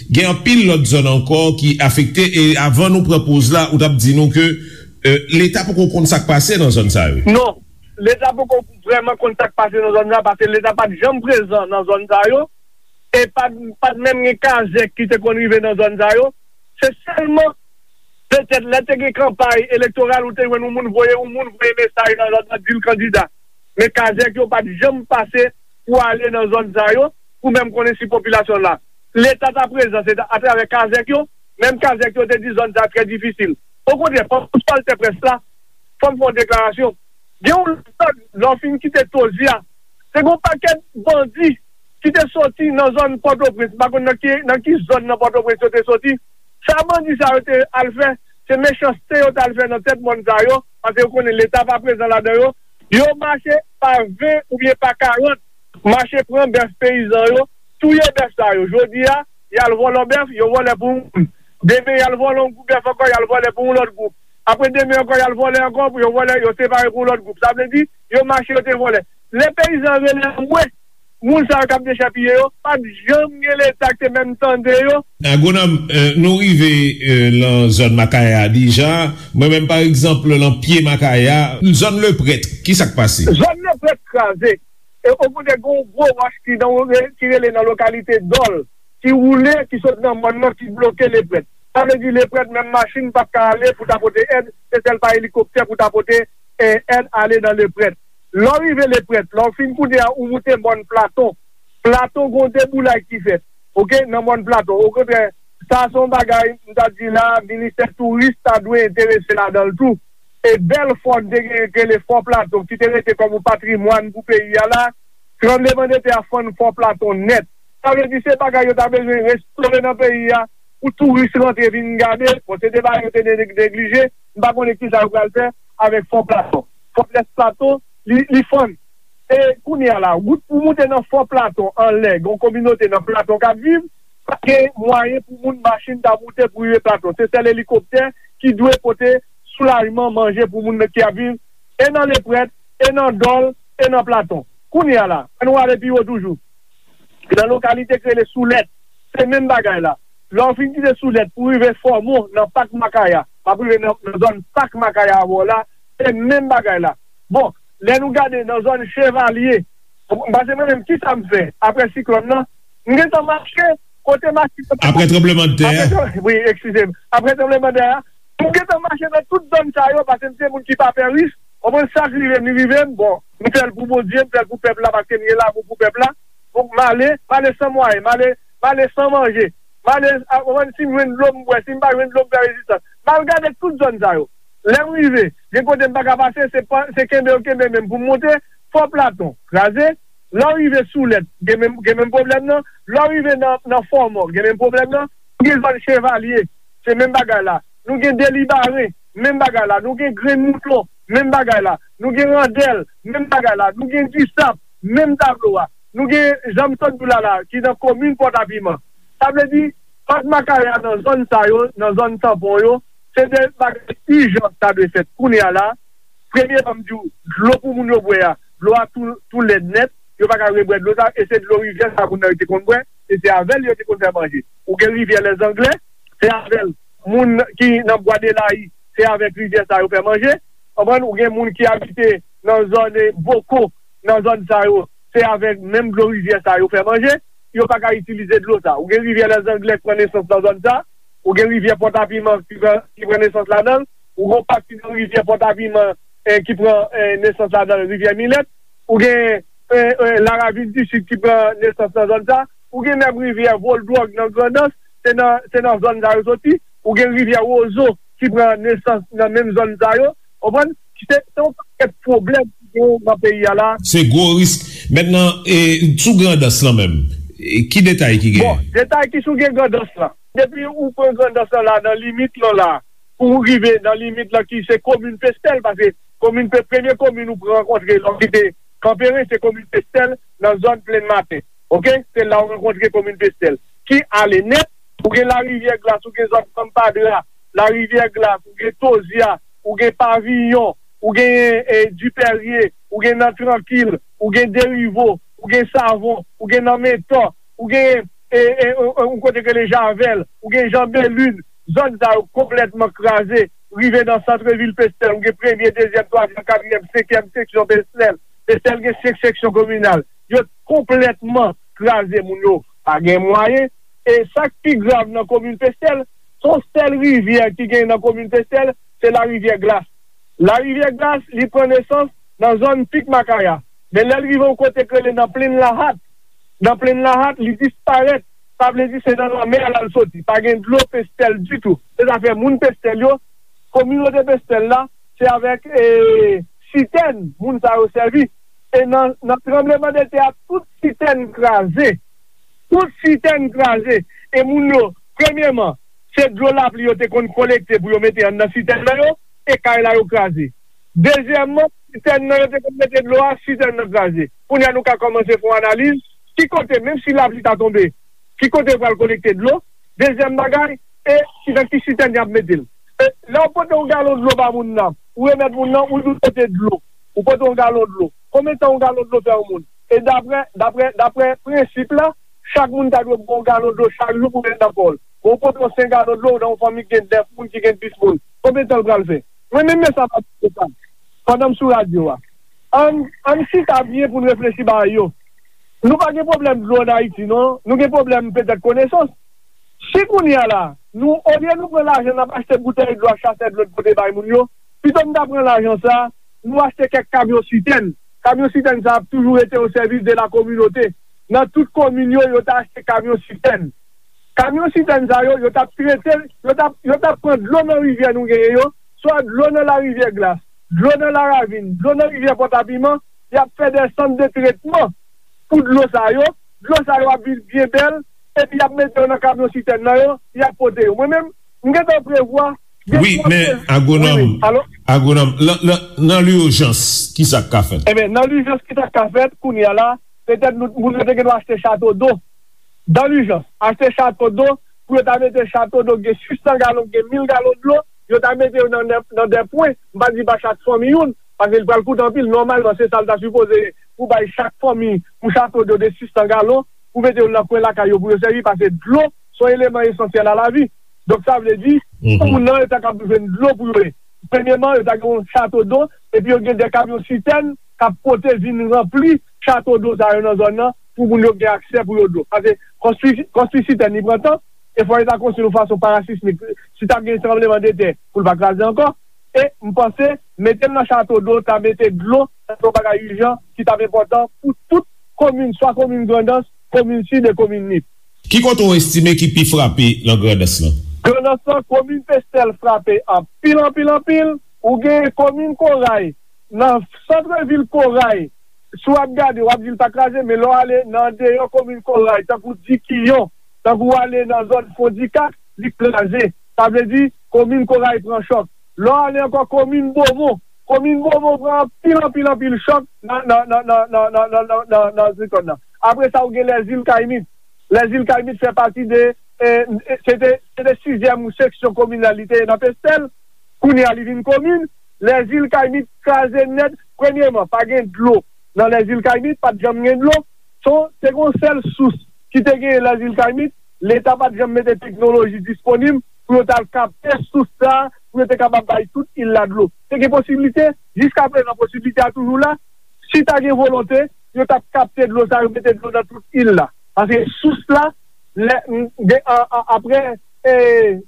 Gen anpil lòt zòn ankò ki afekte, e avan nou pran poz la, ou t ap di nou ke, euh, Leta poko konn sa k pase nan zòn sa yo. Non, Leta poko vrèman konn sa k pase nan zòn sa, paske Leta pa t janm prezan nan zòn sa yo, e pa t, pa t menm gen kazèk ki te konn rive nan zòn sa yo. Se sèlman petèt lè te gen kanpay elektoral, ou te jwenn yon moun voye, yon moun voye mesaj nan zòn nan, di l kandida. Men kazèk yo pa t janm pase pou ale nan zòn sa yo, pou menm konnen si popilasyon la. Leta ta prezan, se ta, atravè kazèk yo, menm kazèk yo te di zòn sa trè difisil. Okontrè, pandan pwòl tè près la, fò m fè yon deklarasyon. Gen yon lòt zòn, lè w fin kite Tozi a, se gen yon pakèt bandi ki te soti nan zòn Pòtoprens, m pa konn nan ki, nan ki zòn nan Pòtoprens yo te soti. Sa bandi sa yo te al fè, se mechanste yo t al fè nan tèt mòn sa yo, paske yo konnen Leta pa prezan ladan yo. Yo mache pa ven oubyen pa karant, mache pran bèf peyizan yo, touye bèf sa yo. Jodi a, y al vòlò bèf, yo vòlè pou yon moun. Demen, y al vòlè yon gwoup bèf ankò, y al vòlè pou yon lòt gwoup. Apre demen ankò, y al vòlè ankò, pou yo vòlè, yo separe pou yon lòt gwoup. Sa vle di, yo mache, yo te vòlè. Lè peyizan rele anmwe, moun sa yo k ap dechèpiye yo, pa t janm gen Leta ki te menm tande yo. Agwonòm, euh, nou rive, euh, nan zòn Makaya a deja. Mwen menm, pa egzanp, nan pye Makaya, zòn Leprèt, ki sa k pase? Zòn Leprèt kraze. E okontrè, gen yon gwo wòch ki nan, ki rele nan lokalite Dòl, ki woule, ki sot nan mòn nan, ki bloke Leprèt. Sa vle di Leprèt, menm machin p ap ka ale pou ta pote èd, se sèl pa elikoptè pou ta pote, eh, èd ale nan Leprèt. Lè w rive Leprèt, lè w fin kounye a, ou moute mòn Platon. Platon, gen yon deboulay ki fèt, oke, nan mòn Platon. Okontrè, sa se yon bagay, m ta di la, ministè touris ta dwe enterese ladan l tou. E bèl fò n te genyen ki rele Fò Platon, ki te rete kòm yon patrimwàn pou peyi a la, tranblemanntè a fann Fò Platon nèt. Sa vle di se bagay yo ta bezwen restore nan peyi a, pou touris rantre vin gade. Bon, se te bagay yo te ne-, neglije, m pa konnen kisa yo pral fè avèk Fò Platon. Fòtrès Platon, li, li fann. E kounye a la, wout pou moute nan Fò Platon anlè, gen yon kominote nan Platon k ap viv, pa gen mwayen pou moun machin ta moute pou rive Platon. Se sèl elikoptè ki dwe pote soulajman, manje pou moun ki ap viv e nan Leprèt, e nan Dòl, e nan Platon. Kounye a la, ann nou ale pi wo toujou. Nan lokalite ki rele Soulèt, se menm bagay la. Lè w fin kite Soulèt pou rive Fòmon nan Pak Makaya, w ap rive nan, nan zòn Pak Makaya avè w la, se menm bagay la. Bon, Lè nou gade nan zòn Chevalye, paske mwen menm, ki sa m fè apre siklòn nan? M gentan mache kote machin yo pa Apre tranblemanntè a? Apre tran- wi, eskize m. Apre tranblemanntè a, m gentan mache nan tout zòn sa yo, paske m se moun ki pa pè risk. Konprann, sa k rive m, li rive m. Bon, m fè l pou Bondye, m fè l pou pèp la, paske m gen lanmou pou pèp la. Donk, m ale, m ale san mwayen, m ale, m ale san manje. M ale, a, konprann, si m jwenn dlo, m bwè, si m pa jwenn dlo, m fè rezistans. M al gade tout zòn sa yo. Lè m rive, gen kote m pa ka pase, se pa, se kenbe yo kenbe men m pou m monte. Fò Platon, kraze. Lè w rive Soulèt, gen menm, gen menm pwoblèm nan. Lè w rive nan, nan Fòmò, gen menm pwoblèm nan. Gen zòn Chevalye, se menm bagay la. Nou gen Delibaren, menm bagay la. Nou gen Grenn Mouton, menm bagay la. Nou gen Randèl, menm bagay la. Nou gen Disap, menm tablo a. Nou gen, jan m sot di w la la, ki nan komin Pòtapiman. Sa vle di, Fòt Makaya nan zòn sa yo, nan zòn Tanpon yo, se de bagay ijan ta dwe fèt kounye a la. Premyeman, m di w, dlo pou moun yo bwè a, dlo a tou, tou lèd nèt, yo pa ka rebwè dlo sa, e se dlo rivyè sa moun nan yo te konn bwè, e se avè l yo te konn fè manje. Ou gen rivyè Lèzanglè, se avè l moun ki nan Bwa de Layi, se avèk rivyè sa yo fè manje. Konprann? Ou gen moun ki abite nan zòn, eh, Boko, nan zòn sa yo, se avèk menm dlo rivyè sa yo fè manje. Yo pa ka itilize dlo sa. Ou gen rivyè Lèzanglè ki pran nesans nan zòn sa. Ou gen rivyè Pòtapiman ki pran, ki pran nesans ladan l. Ou gen yon pati nan rivyè Pòtapiman, eh, ki pran, eh, nesans ladan l, rivyè Milèt. Ou gen, eh, eh, Laravin di Sid ki pran nesans nan zòn sa. Ou gen menm rivyè Voldwòg nan Grandans, se nan, se nan zòn sa yo soti. Ou gen rivyè Wozo ki pran nesans nan menm zòn sa yo. Konprann? Se, se yon pakèt pwoblèm ki gen nan peyi a la. Se gwo risk. Mentnan, e, sou Grandans lan menm, e, ki detay ki Bon, genyen? Detay ki sou gen Grandans lan. Depi ou pran Grandans lan la, nan limit lan la, pou w rive nan limit lan ki se komin Pestèl, paske komin Pe-, premye komin ou pran rankontre lè w kite Kanperen, se komin Pestèl, nan zòn Plenn Maten. Oke? Se la w rankontre komin Pestèl. Ki ale nèt, ou gen Larivyè Glas, ou gen zòn Fanm Padra, Larivyè Glas, ou gen Tozya, ou gen Paviyon, ou gen, eh, Dipèrye, ou gen nan Trankil, ou gen Derivo, ou gen Savon, ou gen nan Mentò, ou gen, eh, eh, eh, eh, yon kote k rele Javèl, ou gen Jan Belin, zòn sa yo konplètman kraze, rive nan santrevil Pestèl, ou gen premye, dezyèm, twazyèm, katriyèm, senkyèm seksyon Pestèl. Pestèl gen senk seksyon kominal. Yo konplètman kraze, moun yo pa gen mwayen. E sa k pi grav nan komin Pestèl, se yon sèl rivyè ki gen nan komin Pestèl, se Larivyè Glas. Larivyè Glas, li pran nesans nan zòn Pik Makaya. Men lè l rive yon kote k rele nan Plenn Lahat, nan Plenn Lahat, li disparèt. Sa vle di se nan lanmè a l al soti. Pa gen dlo Pestèl ditou. Se zafè moun Pestèl yo, kominote Pestèl la, se avèk, eh, sitèn moun sa yo sèvi. E nan, nan tranblemanntè a, tout sitèn kraze. Tout sitèn kraze. E moun yo, premyeman, se dlo lapli yo te konn kolekte pou yo mete anndan sitèn nan yo, e kay la yo kraze. Dezyèmman, sitèn nan yo te konn mete dlo a, sitèn nan kraze. Kounye a nou ka kòmanse fè yon analiz, ki kote, menm si lapli ta tonbe, ki kote yo pral kolekte dlo? Dezyèm bagay, e ki, nan ki sitèn y ap mete l? E lè w pote yon galon dlo ba moun nan, ou remèt moun nan, ou di w pote dlo, ou pote yon galon dlo. Konbyen tan yon galon dlo fè yon moun? E daprè, daprè, daprè prensip la, chak moun ta dwe bwè yon galon dlo chak jou pou mete nan kò l. Bon, ou pote yon senk galon dlo nan yon fanmi ki gen nèf moun, ki gen dis moun. Konbyen tan l pral fè? Mwen menm, men sa m ap di sa. Pandan m sou radyo a, ann, ann chita byen pou n reflechi bagay yo. Nou pa gen pwoblèm dlo ann Ayiti, non. Nou gen pwoblèm petèt konesans. Si kounye a la, nou, olye nou pran lajan n ap achte boutèy dlo ak chasè dlo n pote bay moun yo, pito n ta pran lajan sa, nou achte kèk kamyon sitèn. Kamyon sitèn sa ap toujou rete o sèvis de la kominote. Nan tout komin yo, yo ta achte kamyon sitèn. Kamyon sitèn sa yo, yo t ap trete, yo t ap, yo t ap pran dlo nan rivyè nou genyen yo, swa dlo nan Larivyè Glas, dlo nan Laravin, dlo nan rivyè Pòtapiman, y ap fè de sant de tretman pou dlo sa yo. Dlo sa yo ap vin byen bèl, epi y ap mete yo nan kamyon sitèn nan yo, y ap pote yo. Mwen menm, m gentan prevwa Wi, men, agwonòm, wi, wi. Alo? Agwonòm, nan, nan, nan lijans, ki sa k ka fèt? Ebyen, nan lijans, ki sa k ka fèt, kounye a la, petèt nou, moun yo te gen dwa achte chato do. Dans l'urgence, achte chato do, pou yo ta mete chato do, gen sis san galon, gen mil galon dlo, yo ta mete yo nan, nan, nan de pwen, m pa di ba chak fanmi youn, paske li pral koute anpil, nòmalman, se sa l ta sipoze, pou bay chak fanmi, yon chato do de sis san galon, pou mete yo nan kwen lakay yo, pou yo sèvi, paske dlo, se yon eleman esansyèl a lavi. Donk, sa vle di, pou moun nan, yo ta kab jwenn dlo pou yo ye. Premyeman, yo ta gen yon chato do, epi yo gen de kamyon sitèn, k ap pote vin ranpli chato dlo sa yo nan zòn nan pou moun yo gen aksè pou yo dlo. Paske konstwi, konstwi sitèn li pran tan, e fò yo ta konstwi yon fason parasismik. Si t ap gen tranbleman de tè, pou l pa kraze ankò. E m panse, mete l nan chato dlo, ta mete dlo nan yon bagay ijan ki t ap enpòtan pou tout komin, swa komin Grandans, komin Sid e komin Nip. Ki kote w estime ki pi frape nan Grandans lan? Grandans lan, komin Pestèl frape anpil, anpil, anpil. Ou gen komin Koray, nan santrevil Koray, si w ap gade, w ap di l pa kraze, men lè w ale nan andeyò komin Koray, tankou Dikiyon, tankou w ale nan zòn Fondikak, li kraze. Sa vle di, komin Koray pran chòk. Lè w ale ankò komin Bomon, komin Bomon pran anpil, anpil, anpil chòk nan, nan, nan, nan, nan, nan, nan, nan, nan, nan zòn nan. Apre sa, ou gen Lèzil Kayimit. Lèzil Kayimit fè pati de, eh, se te, se te sizyèm seksyon kominal li te ye nan Pestèl. Kounye a, li vin komin. Lèzil Kayimit kraze nèt. Premyèman, pa gen dlo nan Lèzil Kayimit, pa t janm gen dlo. Se, se yon sèl sous ki te genyen Lèzil Kayimit. Leta pa t janm mete teknoloji disponib pou yo t al kapte sous sa a, pou yo te kapab bay tout il la dlo. Te gen posiblite, jiskaprezan posiblite a toujou la. Si ta gen volonte, yo t ap kapte dlo sa yo, mete dlo nan tout il la. Paske sous la, lè, m, gen, a, a, apre, e,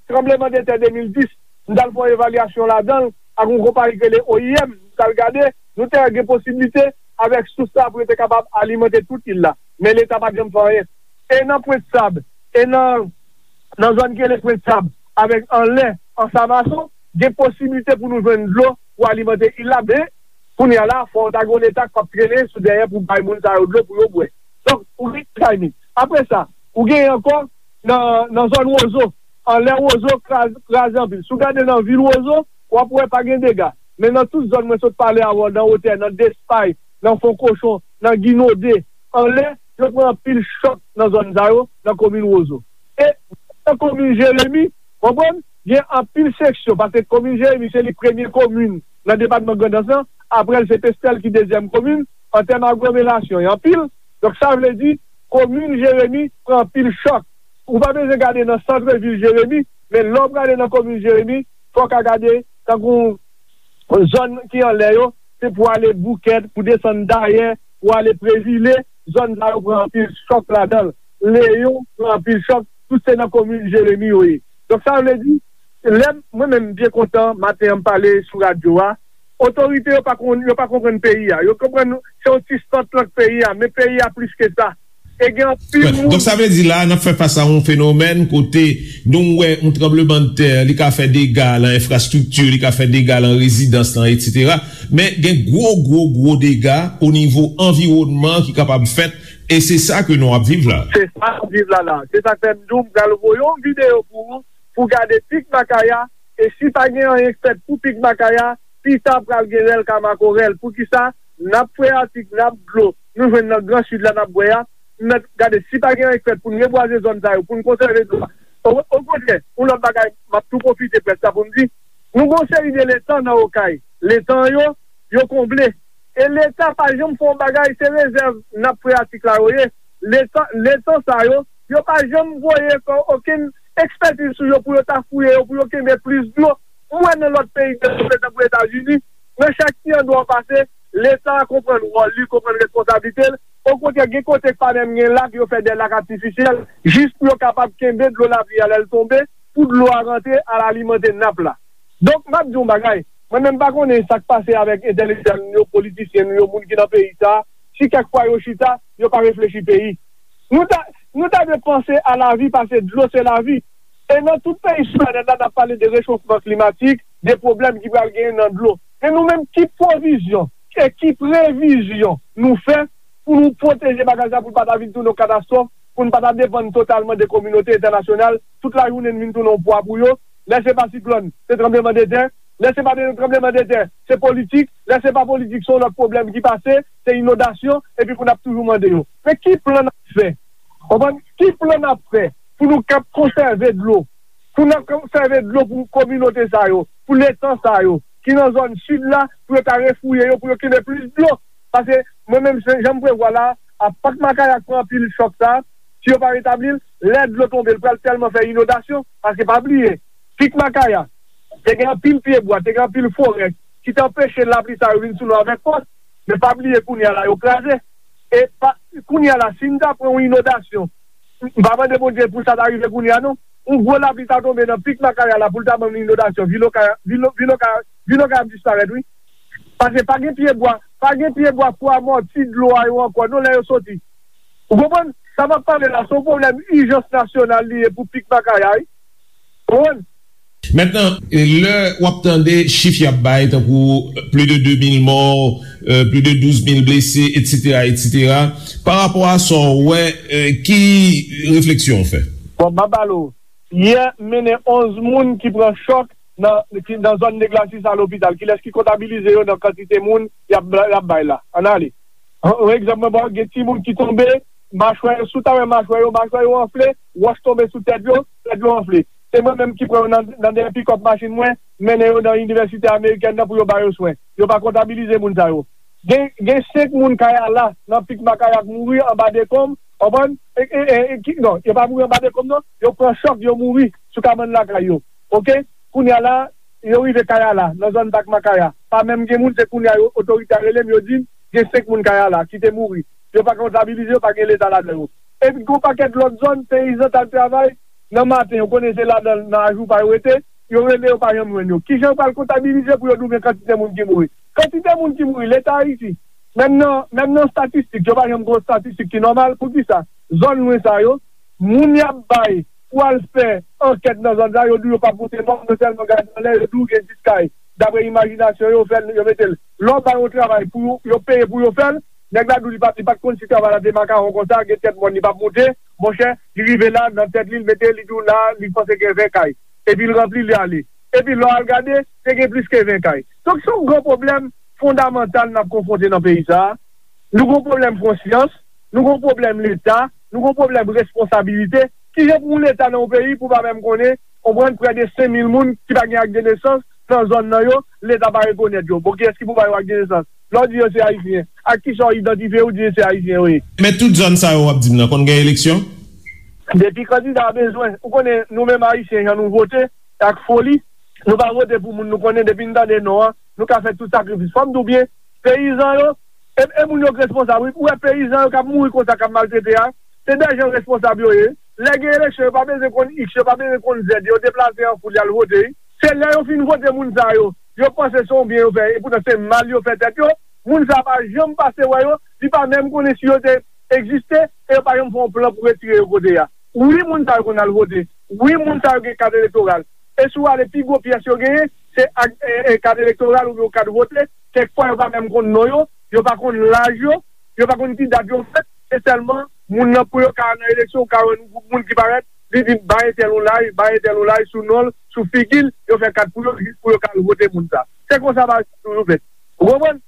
tranbleman de tè de mil dis, m t al fè yon evalyasyon ladan l ak yon konpayi ki rele O I M, m t al gade, nou te wè gen posiblite avèk sous sa pou yo te kapab alimante tout il la. Men Leta pa t janm fè anyen. E nan Pwent Sab, e nan, nan zòn ki rele Pwent Sab, avèk anlè Ansamason, gen posiblite pou nou jwenn dlo pou alimante il la, men kounye a la, fò w ta gen yon Leta k ap trennen sou dèyè pou bay moun sa yo dlo pou yo bwè. Donk, ou gen Kayimit. Apre sa, ou gen ankò nan, nan zòn Wozo, anlè Wozo kraze, kraze anpil. Si w gade nan vil Wozo, w ap wè pa gen dega. Men nan tout zòn mwen sot pale avè w, nan Wotè, nan Despay, nan Fon Kochon, nan Ginode, anlè, yo pran anpil chòk nan zòn sa yo, nan komin Wozo. E nan komin Jeremi, konprann, gen anpil seksyon, paske komin Jeremi se li premye komin nan depatman Grandans lan, apre l se Pestèl ki dezyèm komin, an tèm aglomerasyon, e anpil. Donk sa vle di, komin Jeremi pran anpil chòk. Ou pa bezwen gade nan sant vil Jeremi, men lè w prale nan komin Jeremi, fò w ka gade tankou zòn ki anlè yo, se pou ale Boukèt, pou desann Dayè, pou ale Prezile, zòn sa yo pran anpil chòk ladan l. Leyon pran anpil chòk, tout se nan komin Jeremi yo ye. Donk sa vle di, lè mwen menm m byen kontan, maten an m pale sou radyo a, otorite yo pa konn, yo pa konprann peyi a. Yo konprann se yon ti sant lan k peyi a, men peyi a plis ke sa. E gen anpil moun. Donk sa vle di la, n ap fè fas a yon fenomèn kote nou wè yon tranblemanntè, li ka fè dega lan enfrastrikti, li ka fè dega lan rezidans lan, etsetera. Men gen gwo, gwo, gwo dega o nivo anviwònman ki kapab fèt, e se sa ke nou ap viv la. Se sa n ap viv la la. Se sa k fè m di w, m pral voye yon videyo pou ou, pou gade pik Makaya, e si pa gen anyen k fèt pou pik Makaya, pita pral gen rèl ka makorèl. Poukisa? N ap freyatik, n ap dlo, nou jwenn nan Gran Sid la n ap bwè a, n ap gade si pa gen anyen k fèt pou n rebwaze zòn sa yo, pou n konsève dlo a. O, okontrè, yon lòt bagay, m ap tou pwofite près la pou m di, nou gen yon seri de letan nan Okay. Letan yo, yo konble. E Leta pa janm fè yon bagay, se rezèv nap freyatik la yo ye. Letan, letan sa yo, yo pa janm voye kò okenn ekspètiz sou yo pou yo ta fouye yo, pou yo kenbe plis dlo. M wè nan lòt peyi devlope tankou Etazini, nan chak ti andwa w pase, Leta a konprann wòl li, konprann responsablite l. Okontrè, gen kote k pa menm gen lak, yo fè de lak atifisyèl, jis pou yo kapab kenbe dlo lapli a lè l tonbe, pou dlo a rantre al alimante nap la. Donk, m ap di w yon bagay, mwen menm m pa konnen sa k pase avèk entèlektyèl nou yo, politisyen nou yo, moun ki nan peyi sa a, si kèk fwa yo chita, yo pa reflechi peyi. Nou ta, nou ta dwe panse a lavi, paske dlo se lavi. E nan tout peyi sou planèt la, n ap pale de rechofman klimatik, de pwoblèm ki pral genyen nan dlo. Men nou menm, ki pwovizyon e ki previzyon nou fè pou nou pwoteje bagay sa, pou l pa ta vin tounen yon katastwòf, pou n pa ta depann totalman de kominote entènasyonal, tout lajounen n vin tounen yon pwa pou yo. Lè se pa siklòn, se tranblemanntè. Lè se pa de tranblemanntè, se politik. Lè se pa politik, se yon lòt pwoblèm ki pase, se inondasyon, epi pou n ap toujou mande yo. Men ki plan n ap fè? Konprann? Ki plan n ap fè pou nou kab konsève dlo? Pou n ap konsève dlo pou kominote sa yo, pou letan sa yo, ki nan zòn sid la, pou yo ta refouye yo, pou yo kenbe plis dlo. Paske mwen menm, se jan m prevwa la, a pik Makaya k pran anpil chòk sa, si yo pa retabli l, lè dlo tonbe, l pral tèlman fè inondasyon, paske pa bliye, pik Makaya, te gen anpil pyebwa, te gen anpil forè, ki te anpeche lapli sa yo vin sou nou avèk fòs. E pa bliye kounye a la yo kraze. E pa, kounye a la, si n ta pran yon inondasyon, m pa mande Bondye pou sa ta rive kounye a non. Yon gwo lapli ta tonbe nan pik Makaya la pou l ta ban m inondasyon. Vil Okay, vil, vil Okay, vil Okay ap disparèt wi. Paske pa gen pye bwa, pa gen pye bwa pou amòti dlo a yo ankò non lè yo soti. Ou konprann? Sa m ap pale la se yon pwoblèm ijans nasyonal li ye pou pik Makaya wi. Ou konprann? Mentnan, lè w ap tande chif y ap bay, tankou plis de de mil mò, plis de douz mil blese, etsetera, etsetera, pa rapò a sa w wè, ki refleksyon w fè? Bon, m ap ba l ou. Yè, m mennen onz moun ki pran chòk nan, ki, nan zòn Neglasis a lopital. Kilès ki kontabilize yo nan kantite moun y ap, y ap bay la? Ann ale. Yon egzanp mwen ba w, gen timoun ki tonbe, machwè yo, si w ta wè machwè yo, machwè yo anfle, wòch tonbe sou tèt yo, tèt yo anfle. Se mwen menm ki pran yo nan, nan dèyè pikòp machin mwen, mennen yo nan inivèsite amerikèn nan pou yo ba yo swen. Yo pa kontabilize moun sa yo. Gen, gen senk moun Kayala nan pik Makaya k mouri anba dekonm, w konprann? E, e, e, e, ki, non, yo pa mouri anba dekonm non, yo pran chòk, yo mouri sou kabann lakay yo. Oke? Kounye a la, yo rive Kayala, nan zòn Pak Makaya. Pa menm gen moun, se kounye a yo, otorite a rele m, yo di m, gen senk moun Kayala ki te mouri. Yo pa kontabilize yo, pa gen leta ladan yo. Epi gen yon pakèt lòt zòn, peyizan t al travay nan maten, yo konnen se ladan, nan ajou pa yo rete, yo rele yo pa janm jwenn yo. Kijan yo pral kontabilize pou yo di w men kantite moun ki mouri? Kantite moun ki mouri, leta Ayiti, menm nan, menm nan statistik, yo pa janm gen yon statistik ki nòmal. Poukisa? Zòn lwen sa yo, moun y ap bay pou al fè ankèt nan zòn sa, yo di w yo p ap pote mò, yo sèlman gade anlè, yo di w gen dis kay. Dapre imajinasyon yo, yo fè l, yo mete l. Lè w bay yon travay pou yo, yo peye pou yo fè l, nèg la di w li pa, li pa t konn si travay la te makawon konsa, gen tèt mòn li p ap moute. Monchè, li rive la, nan tèt li, l mete, li di w la, li panse gen ven kay. Epi l ranpli, li ale. Epi lè w al gade, te gen plis ke ven kay. Donk, se yon gwo pwoblèm fondamantal n ap konfwonte nan peyi sa a. Nou gen yon pwoblèm konsyans, nou gen yon pwoblèm leta, nou gen yon pwoblèm responsabilite. Kijan pou yon leta nan yon peyi pou pa menm konnen, konprann, prè de senk mil moun ki pa gen ak de nesans nan zòn nan yo, leta pa rekonèt yo. Bon, kiyès ki pou ba yo ak de nesans? Lè w di yo se Ayisyen, ak kisa w idantifye yo, w di se Ayisyen yo ye? Men tout zòn sa yo w ap di m nan konn gen eleksyon? Depi kandida a bezwen, ou konnen nou menm Ayisyen, jan nou vote, ak foli, nou pa vote pou moun nou konnen, depi n tande non an, nou ka fè tout sakrifis. Fò m di w byen, peyizan yo, e, e moun yo k responsab wi. Ou wè peyizan yo k ap mouri konsa, k ap maltrete a, se dè jan responsab yo ye. Lè gen eleksyon, yo pa bezwen konn iks, yo pa bezwen konn zèd, yo deplase an foul, y al vote wi. Se lè yo fin vote moun sa yo, yo panse se yon byen yo fè, epoutan se mal yo fè tèt yo. Moun sa pa janm pase wè yo, li pa menm konnen si yo te egziste, e yo pa janm fè yon plan pou retire yo kote a. Wi, moun sa yo konn al vote. Wi, moun sa yo gen kat elektoral. E si w ale pi gwo pyès yo genyen, se ak, e, e, kat elektoral oubyen yon kat vote. Kèk fwa, yo pa menm konn non yo, yo pa konn laj yo, yo pa konn ki dat yo fèt. Se sèlman moun nan pou yo ka al nan eleksyon, ou ka wè yon gwoup moun ki parèt, li di bay entèl yon laj, bay entèl yon laj sou non l, sou figi l, yo fè kat pou yo, jis pou yo ka al vote moun sa. Se konsa bagay sa toujou fèt. Ou konprann?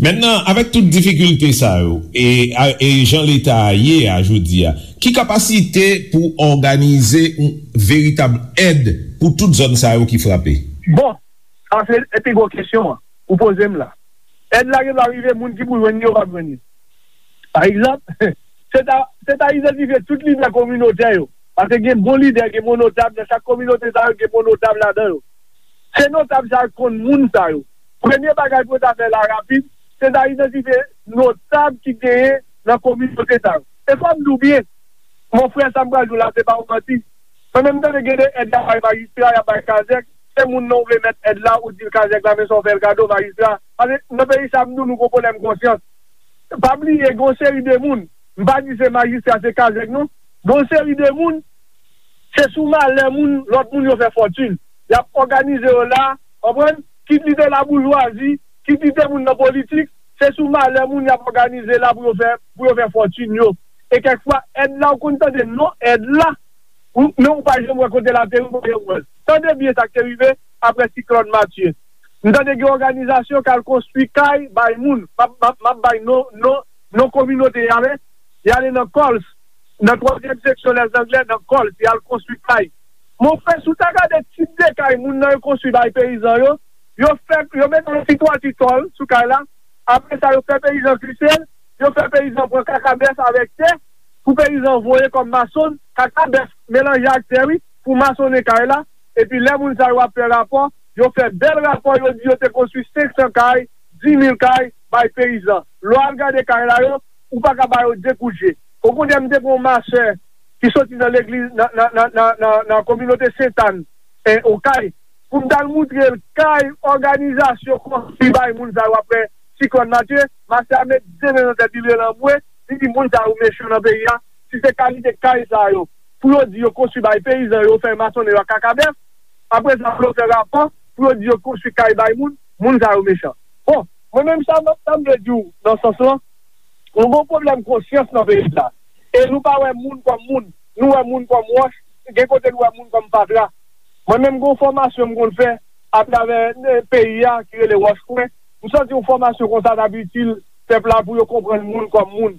Mentnan, avèk tout difikilte sa yo, e, a, e jan leta a ye a jodi a, ki kapasite pou òganize yon veritab èd pou tout zòn sa yo ki frape? Bon, sa se pi gwo kesyon an ou poze m la. Èd la gen dwa rive, moun ki pou jwenn li yo p ap jwenn li. Pa egzanp, se ta, se ta idantifye tout lidè kominotè yo. Paske gen bon lidè, gen bon notab, nan chak kominote sa yo, gen bon notab ladan yo. Se notab sa yo ki konn moun sa yo. Premye bagay pou yo ta fè la rapid, se ta idantifye notab ki genyen nan kominote sa yo. E fò m di w byen, mon frè, sa m pral di w la, se pa yon manti. Mwen menm, m tande gen de èd y ap bay majistra, y ap bay kazèk, se moun nan ou vle mèt èd la, ou di l kazèk la, men sa w fè l kado, majistra. Paske nan peyi sa, m di w, nou gon pwoblèm konsyans. Pa bliye, gon seri de moun, m pa di se majistra, se kazèk non. Gon seri de moun, se sou malè moun, lòt moun yo fè fòtin. Y ap òganize yo la, konprann? Kit li te laboujwazi, kit li te moun nan politik, se sou malè moun y ap òganize la pou yo fè, pou yo fè fòtin yo. E kèk fwa, èd la ou konn tande non èd la, ou, men ou pa janm wè kote l ateri, ou pa janm wè l. Tande byen sa k te rive apre siklòn Matye. M tande gen òganizasyon k al konstwi kay bay moun. M ap, m ap, m ap bay non, non, non kominote y ale. Y ale nan Kòls, nan twazyèm seksyon Lèzanglè, nan Kòls, y al konstwi kay. Monfrè, si w ta gade tip de kay moun nan yo konstwi bay peyizan yo, yo fè, yo mete yon ti twati tòl sou kay la, apre sa, yo fè peyizan klise l, yo fè peyizan pran kaka bèf avèk tè, pou peyizan voye kòm masonn, kaka bèf melanje ak tè, wi, pou masonnen kay la. Epi lè moun sa yo ap fè rapò, yo fè bèl rapò, yo di yo te konstwi senk san kay, di mil kay, bay peyizan. Lè w al gade kay la yo, ou pa ka ba yo de kout je. Okontrè, m te gen yon masè ki soti nan legliz, nan, nan, nan, nan, nan, nan kominote Sentàn, e, Okay, pou m t al moutre l kay òganizasyon konstwi bay moun sa yo apre siklòn Matye, masè a met de men nan tèt li, l rele anmwe, li di, "Moun sa yo mechan nan peyi a. Si se kalite kay sa yo, pou yo di yo konstwi bay peyizan yo, fè masonnen yo ak kakabèf, apre sa, pou yo fè rapò, pou yo di yo konstwi kay bay moun, moun sa yo mechan." Bon, mwen menm sa, sa m vle di w nan sans lan, nou gen yon pwoblèm konsyans nan peyi sa. E nou pa wè moun kòm moun, nou wè moun kòm wòch, gen kote nou wè moun kòm fatra. Mwen menm gen yon fòmasyon m konn fè atravè, eh, peyi a ki rele Wòch Kwen. M santi yon fòmasyon konsa t ap itil pèp la pou yo konprann moun kòm moun.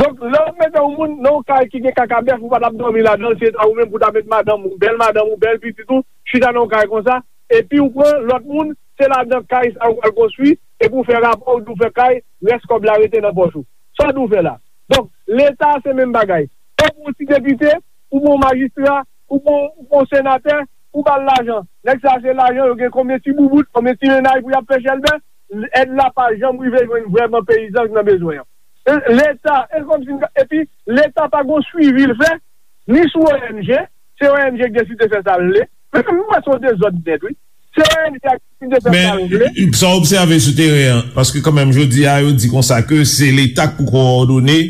Donk, lè w mete yon moun nan yon kay ki gen kakabèf, ou pa t ap dòmi ladan l, se ta ou menm pou ta met madanm ou, bèl madanm ou, bèl pitit ou, chita nan yon kay konsa, epi ou pran lòt moun, se ladan kay sa ou pral konstwi, epi ou fè rapò, ou di w fè kay, rès kòb la rete nan pòch ou. Sa w di w fè la? Donk, Leta se menm bagay. Ou pran yon ti depite, ou pran yon majistra, ou pran, ou pran yon senatè, ou ba l lajan. Nèg sa se lajan, yo gen konbyen ti boubout, konbyen ti mennaj pou y ap fè chèlbè, èd la pa janm rive jwenn vrèman peyizan ki nan bezwen an. E, Leta, e kòmsi, epi Leta pa gon swivi l fè, ni sou O N G, se O N G ki deside fè sa l vle. Men m wè se yon dezòd nèt, wi. Se O N G a ki deside fè sa l vle. Men, sa w obsève sou teren an, paske kanmenm jodi a, yo di konsa ke se Leta k pou kowòdone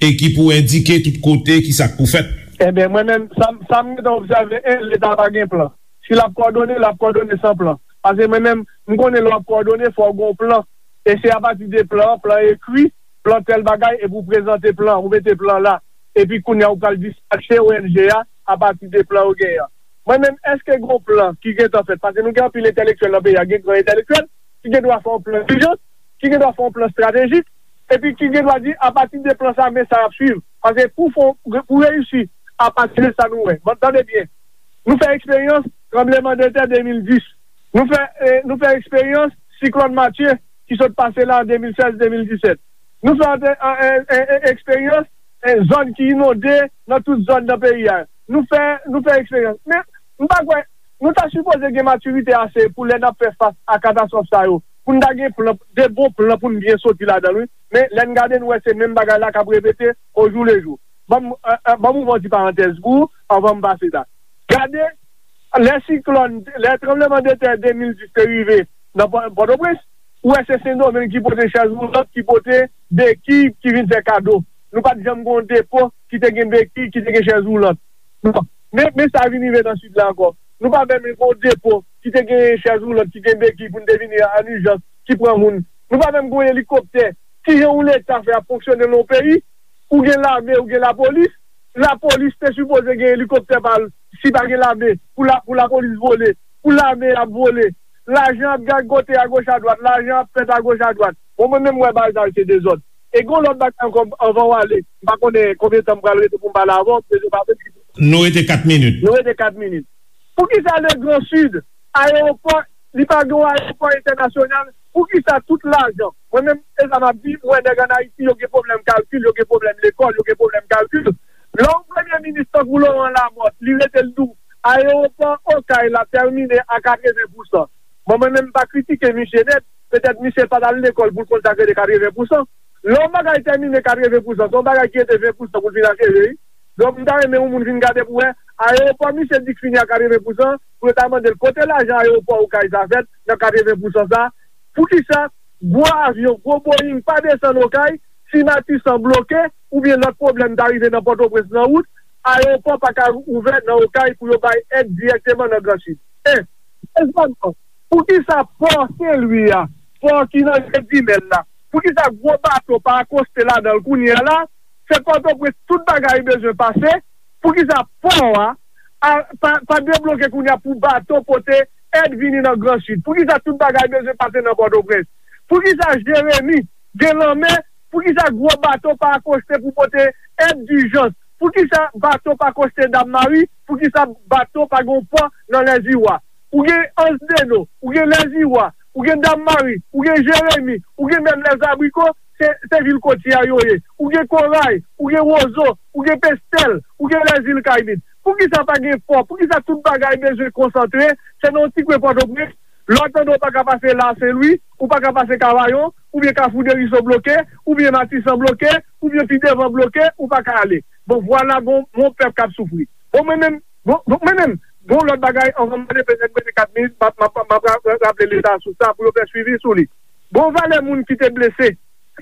e ki pou endike tout kote ki sa k pou fèt. Ebyen, mwen menm, sa, sa m gentan obsève, en, Leta pa gen plan. Si l ap kowòdone, l ap kowòdone san plan. Paske mwen menm, m konnen lè w ap kowòdone, fò w gen yon plan. E se apati de plan an, plan ekri, plan tèl bagay, epi w prezante plan, ou mete plan la. Epi kounye a, ou pral dispache O N G a apati de plan ou genyen an. Mwen menm, èske gen yon plan ki gentan fèt? Paske nou gen anpil entèlektyèl nan peyi a, gen gran entèlektyèl ki gen dwa fè yon plan dijans, ki gen dwa fè yon plan estratejik, epi ki gen dwa di, apati de plan sa, men sa y ap swiv. Paske pou fè, pou reyisi, apati de sa nou wè. Bon, tande byen. Nou fè eksperyans tranblemanndetè de mil dis. Nou fè, eh, nou fè eksperyans siklòn Matye ki sot pase la an de mil sèz, de mil disèt. Nou fè ante-, an, en, en, en, eksperyans, en, zòn ki inonde nan tout zòn nan peyi a. Nou fè, nou fè eksperyans. Men, m pa kwè, nou ta sipoze gen matirite ase pou lè n ap fè fas a katastwòf sa yo, pou n ta gen plan, de bon plan pou n byen soti ladan l, wi. Men, lè n gade, nou wè se menm bagay la k ap repete ojoulejou. Ban m, eh, eh, ban m ouvè yon ti parantèz pou ou anvan m pase la. Gade, lè siklòn, lè tranblemanndetè de mil dis te rive nan Pò-, Pòtoprens, ou wè se Sendomeng ki pote chèz woulant, ki pote beki, ki vin fè kado. Nou pa t janm gen yon depo ki te gen beki, ki te gen chèz woulant. Non. Men, men sa vin rive nan Sid la ankò. Nou pa menm gen yon depo ki te gen chèz woulant, ki gen beki pou n te vini an ijans, ki pran moun. Nou pa menm gen yon elikoptè. Kijan yon Leta fè ap fonksyone nan yon peyi? Ou gen lame, ou gen lapolis. Lapolis te sipoze gen elikoptè pa l, si pa gen lame, pou la, pou lapolis vole, pou lame ap vole. Lajan ap gagote agoch adwat, lajan ap fèt agoch adwat. Bon, mwen menm, m wè bagay sa yo se dezòd. E gen yon lòt bagay ankò, anvan w ale, m pa konnen konbyen tan m pral rete pou m pale avè w, m bezwen pa menm. Nou rete kat minit. Nou rete kat minit. Poukisa le Gran Sid, ayewopò, li pa gen yon ayewopò entènasyonal? Poukisa tout lajan? Mwen menm, e sa m ap di, m wè nèg ann Ayiti, yo gen pwoblèm kalkil, yo gen pwoblèm lekòl, yo gen pwoblèm kalkil. Lè yon premye minis tankou Laurent Lamothe, li rete l di w, ayewopò Okay la tèmine a katreven pousan. Bon, mwen menm, m pa kritike misye nèt, petèt misye pa t al lekòl pou l konn sa k rele katreven pousan. Lè yon bagay tèmine katreven pousan, se yon bagay ki rete ven pousan pou l fin acheve, wi. Donk, m ta renmen yon moun vin gade pou wè, ayewopò misye di k fini a katreven pousan, pou yo ta mande l kote lajan ayewopò Okay sa fèt nan katreven pousan sa. Poukisa gwo avyon, gwo Boeing pa desann Okay, si Matisan bloke, oubyen lòt pwoblèm ta rive nan Pòtoprens nan wout, ayewopò pa ka ouvè nan Okay pou yo bay èd dirèkteman nan Gran Sid? E, dezèmman, poukisa pò Senlwi a, pò ki nan Jezimèl la, poukisa gwo bato pa akoste ladan l kounye a la? Se Pòtoprens tout bagay bezwen pase. Poukisa pò a, a, pa, pa debloke kounye a pou bato pote èd vini nan Gran Sid? Poukisa tout bagay bezwen pase nan Pòtoprens? Poukisa Jeremi gen lanmè? Poukisa gwo bato pa akoste pou pote èd dijans? Poukisa bato pa akoste Dam Mari? Poukisa bato pa gen yon pò nan Lèziwa? Ou gen Anse des Eaux, ou gen Lèziwa, ou gen Dam Mari, ou gen Jeremi, ou gen menm Lèzabriko, se, se vil kotye a yo ye. Ou gen Koray, ou gen Wozo, ou gen Pestèl, ou gen Lèzil Kayimit. Poukisa pa gen pò? Poukisa tout bagay bezwen konsantre? Se nan yon ti kwen Pòtoprens. Lè w tande w pa ka pase Lasenlwi, ou pa ka pase Kavayon, oubyen Kafou Deriso bloke, oubyen Matisan bloke, oubyen pi devan bloke, ou pa ka ale. Bon, vwala, gon, gon pèp k ap soufri. Bon, mwen menm, bon, bon, mwen menm, gon lòt bagay, anvan m ale, petèt mwen te kat minit, m ap, m ap, m ap ra-, ra-, raple Leta sou sa pou yo fè swivi sou li. Gon valè moun ki te blese,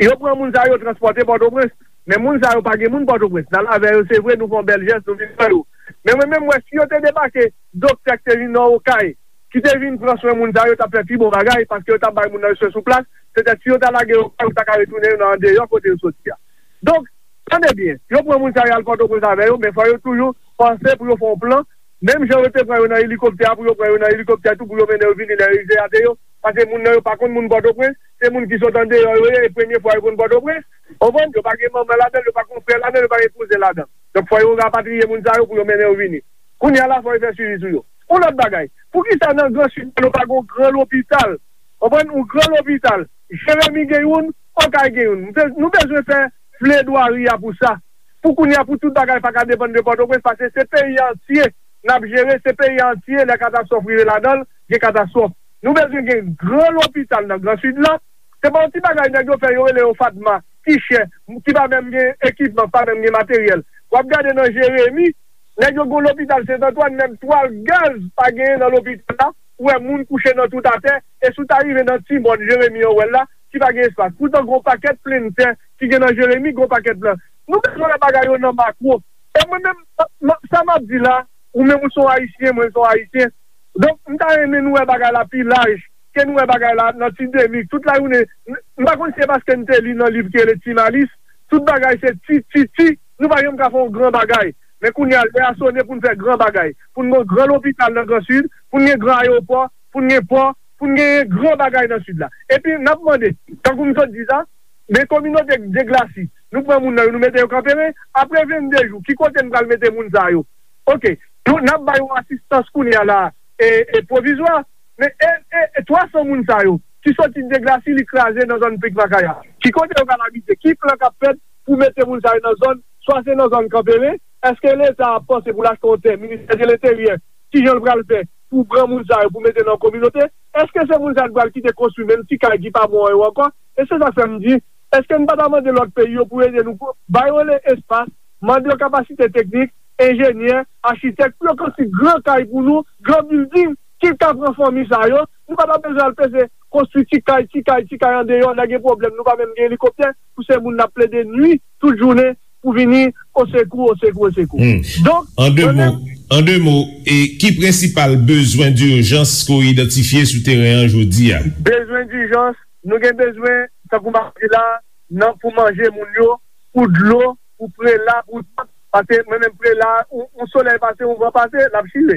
yo pran moun sa yo, transpòte Pòtoprens, men moun sa yo pa gen moun Pòtoprens. N al avè yo, se vre, nou fè yon bèl jès, nou vin pran yo. Men mwen menm, m wè si yo te debake, doktè k te vin nan Okay, ki te vin pran swen moun sa yo, t ap fè pi bon bagay, paske yo t ap bay moun nan yo swen sou plas. Petèt si yo ta lage yo, yo ta ka retounen yo nan andeyò kote yo soti a. Donk, tande byen, yo pran moun sa yo al Pòtoprens avè yo, men fò yo toujou panse pou yo fè yon plan. Menm jan yo te pran yo nan elikoptè a, pou yo pran yo nan elikoptè tou, pou yo mennen yo vini lè yo rive ate yo. Paske moun nan yo pa konn moun Pòtoprens, se moun ki sot andeyò yo ye, e premye fwa yo konn Pòtoprens. Konprann? Yo pa gen manman ladan l, yo pa gen frè ladan l, yo pa gen kouzen ladan l. Donk, fò yo rapatriye moun sa yo pou yo mennen yo vini. Kounye a la, fò yo fè swivi sou yo. Yon lòt bagay, poukisa nan Gran Sid la, nou pa gen yon gran lopital? Konprann? Yon gran lopital. Jeremi gen youn, Okay gen youn. Nou be-, nou bezwen fè pledwari a pou sa. Pou kounye a, pou tout bagay pa ka depann de Pòtoprens, paske se peyi antye n ap jere, se peyi antye, lè katastwòf rive ladan l, gen katastwòf. Nou bezwen gen gran lopital nan Gran Sid la. Se pa yon ti bagay nèg yo fè, yo rele yo Fatma, ki chè, ki pa menm gen ekipman, pa menm gen materyèl. W ap gade nan Jeremi, nèg yo gen yon lopital Sent Antwàn, menm twal gaz pa genyen nan lopital la. Ou wè moun kouche nan tout atè, e si w ta rive nan ti mòn Jeremi an, w wè l la, ki pa gen espas. Poutan, gen yon pakèt plenn tè ki gen nan Jeremi, gen yon pakèt plan. Nou bezwen wè bagay yo nan makwo. E mwen menm, m-, m-, sa m ap di la, ou menm ou se yon Ayisyen, mwen se yon Ayisyen. Donk, m ta renmen nou wè bagay la pi laj ke nou wè bagay la nan ti demi. Tout lajounen, m, m pa konn si se paske n te li nan liv ki rele Ti Malis, tout bagay se ti, ti, ti. Nou pa janm ka fè yon gran bagay. Men kounye a, lè a sone pou n fè gran bagay. Pou n gen yon gran lopital nan Gran Sid, pou n gen gran ayewopò, pou n gen pò, pou n gen gran bagay nan Sid la. Epi, n ap mande, tankou m sot di sa, men kominote Deglasi, nou pran moun nan yo, nou mete yo Kanperen, apre vennde jou, ki kote n pral mete moun sa yo? Oke, nou, n ap ba yo asistans kounye a la, e, e pwovizwa, men e, e, e twa san moun sa yo, ki soti Deglasi, li kraze nan zòn Pik Makaya. Ki kote yo pral abite? Ki plan k ap fèt pou mete moun sa yo nan zòn, swa se nan zòn Kanperen, èske Leta ap panse pou l achte yon tè, Ministè de Lenteryè, kijan l pral fè pou pran moun sa yo, pou mete nan kominote? Èske se moun sa yo pral kite konstwi menm ti kay ki pa bon an yo ankò? E se sa k fè m di, èske n pa ta mande lòt peyi yo pou ede nou, pou ba yo le espas, mande yo kapasite teknik, enjenyè, achitèk, pou yo konstwi gran kay pou nou, gran bilding, ki ka pran fanmi sa yo? Nou pa ta bezwen al peze konstwi ti kay, ti kay, ti kay andeyò, lè gen pwoblèm, nou pa menm gen elikoptè, pou se moun n ap plede nwi tout jounen, pou vini osekou, osekou, osekou. Hmm. Donk, an de mo, an de mo, e ki prensipal bezwen dijans ke w idantifye sou teren an jodi a? Bezwen dijans, nou gen bezwen, tankou m ap di la, nan pou manje moun yo, pou dlo, pou prela, pou tout. Paske mwen menm prela, yon, yon solèy pase, yon van pase, l ap chire.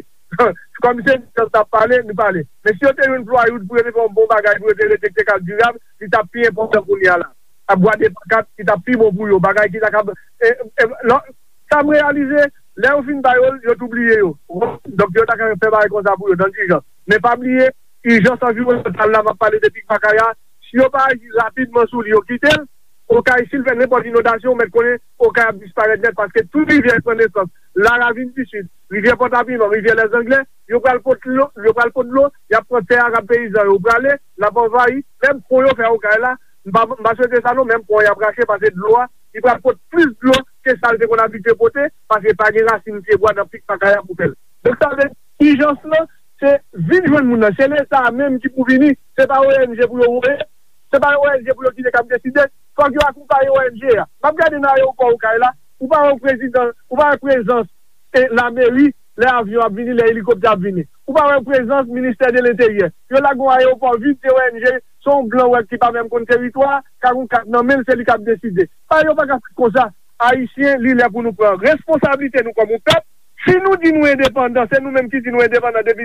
Kòm se nou t ap pale, nou pale. Men si yo te jwenn Floyd pou yo te fè yon bon bagay, pou yo te rete k te ka dirab, li t ap pi enpòtan kounye a la. T ap gade pankat, li t ap pi bon pou yo. Bagay ki ta kab, e, e, lò, sa m reyalize, lè yo fin ba yo l, yo tou bliye yo. Donk, yo ta ka fè bagay konsa pou yo, nan ijans. Men pa bliye, ijans anviwònmantal la, m ap pale de Pik Makaya, si yo pa aji rapidman sou li, yo kite l, Okay, si l fè nenpòt inondasyon, ou mèt konnen Okay ap disparèt nèt, paske tout rivyè k pran nesans, Laravin di Sid, rivyè Pòtapiman, rivyè Lèzanglè, yo pral pot dlo, yo pral pot dlo, y ap pran tè a k ap peyizan yo prale, l ap anvayi, menm pon yo fè Okay la, m pa, m pa swete sa non, menm pon y ap rache, paske dlo a, li pral pot plis dlo ke sa l te konn abitye pote, paske pa gen rasin pyebwa nan Pik Makaya pou fè l. Donk, sa vle di, ijans lan, se vin jwenn moun nan, se Leta a menm ki pou vini, se pa O N G pou yo voye, se pa O N G pou yo kite k ap deside, fòk yo akonpaye O N G a. M ap gade nan ayewopò Okay la, ou pa wè prezidan, ou pa wè prezans e lameri lè avyon ap vini, lè elikoptè ap vini. Ou pa wè prezans Ministè de Lenteryè. Yo lage yon ayewopò vid, se O N G, se yon blan w wè ki pa menm konn teritwa a, ka gon kat nan men l, se li k ap deside. Bagay yo pa ka fèt konsa. Ayisyen, li lè pou nou pran responsablite nou kòm yon pèp. Si nou di nou endepandan, se nou menm ki di nou endepandan depi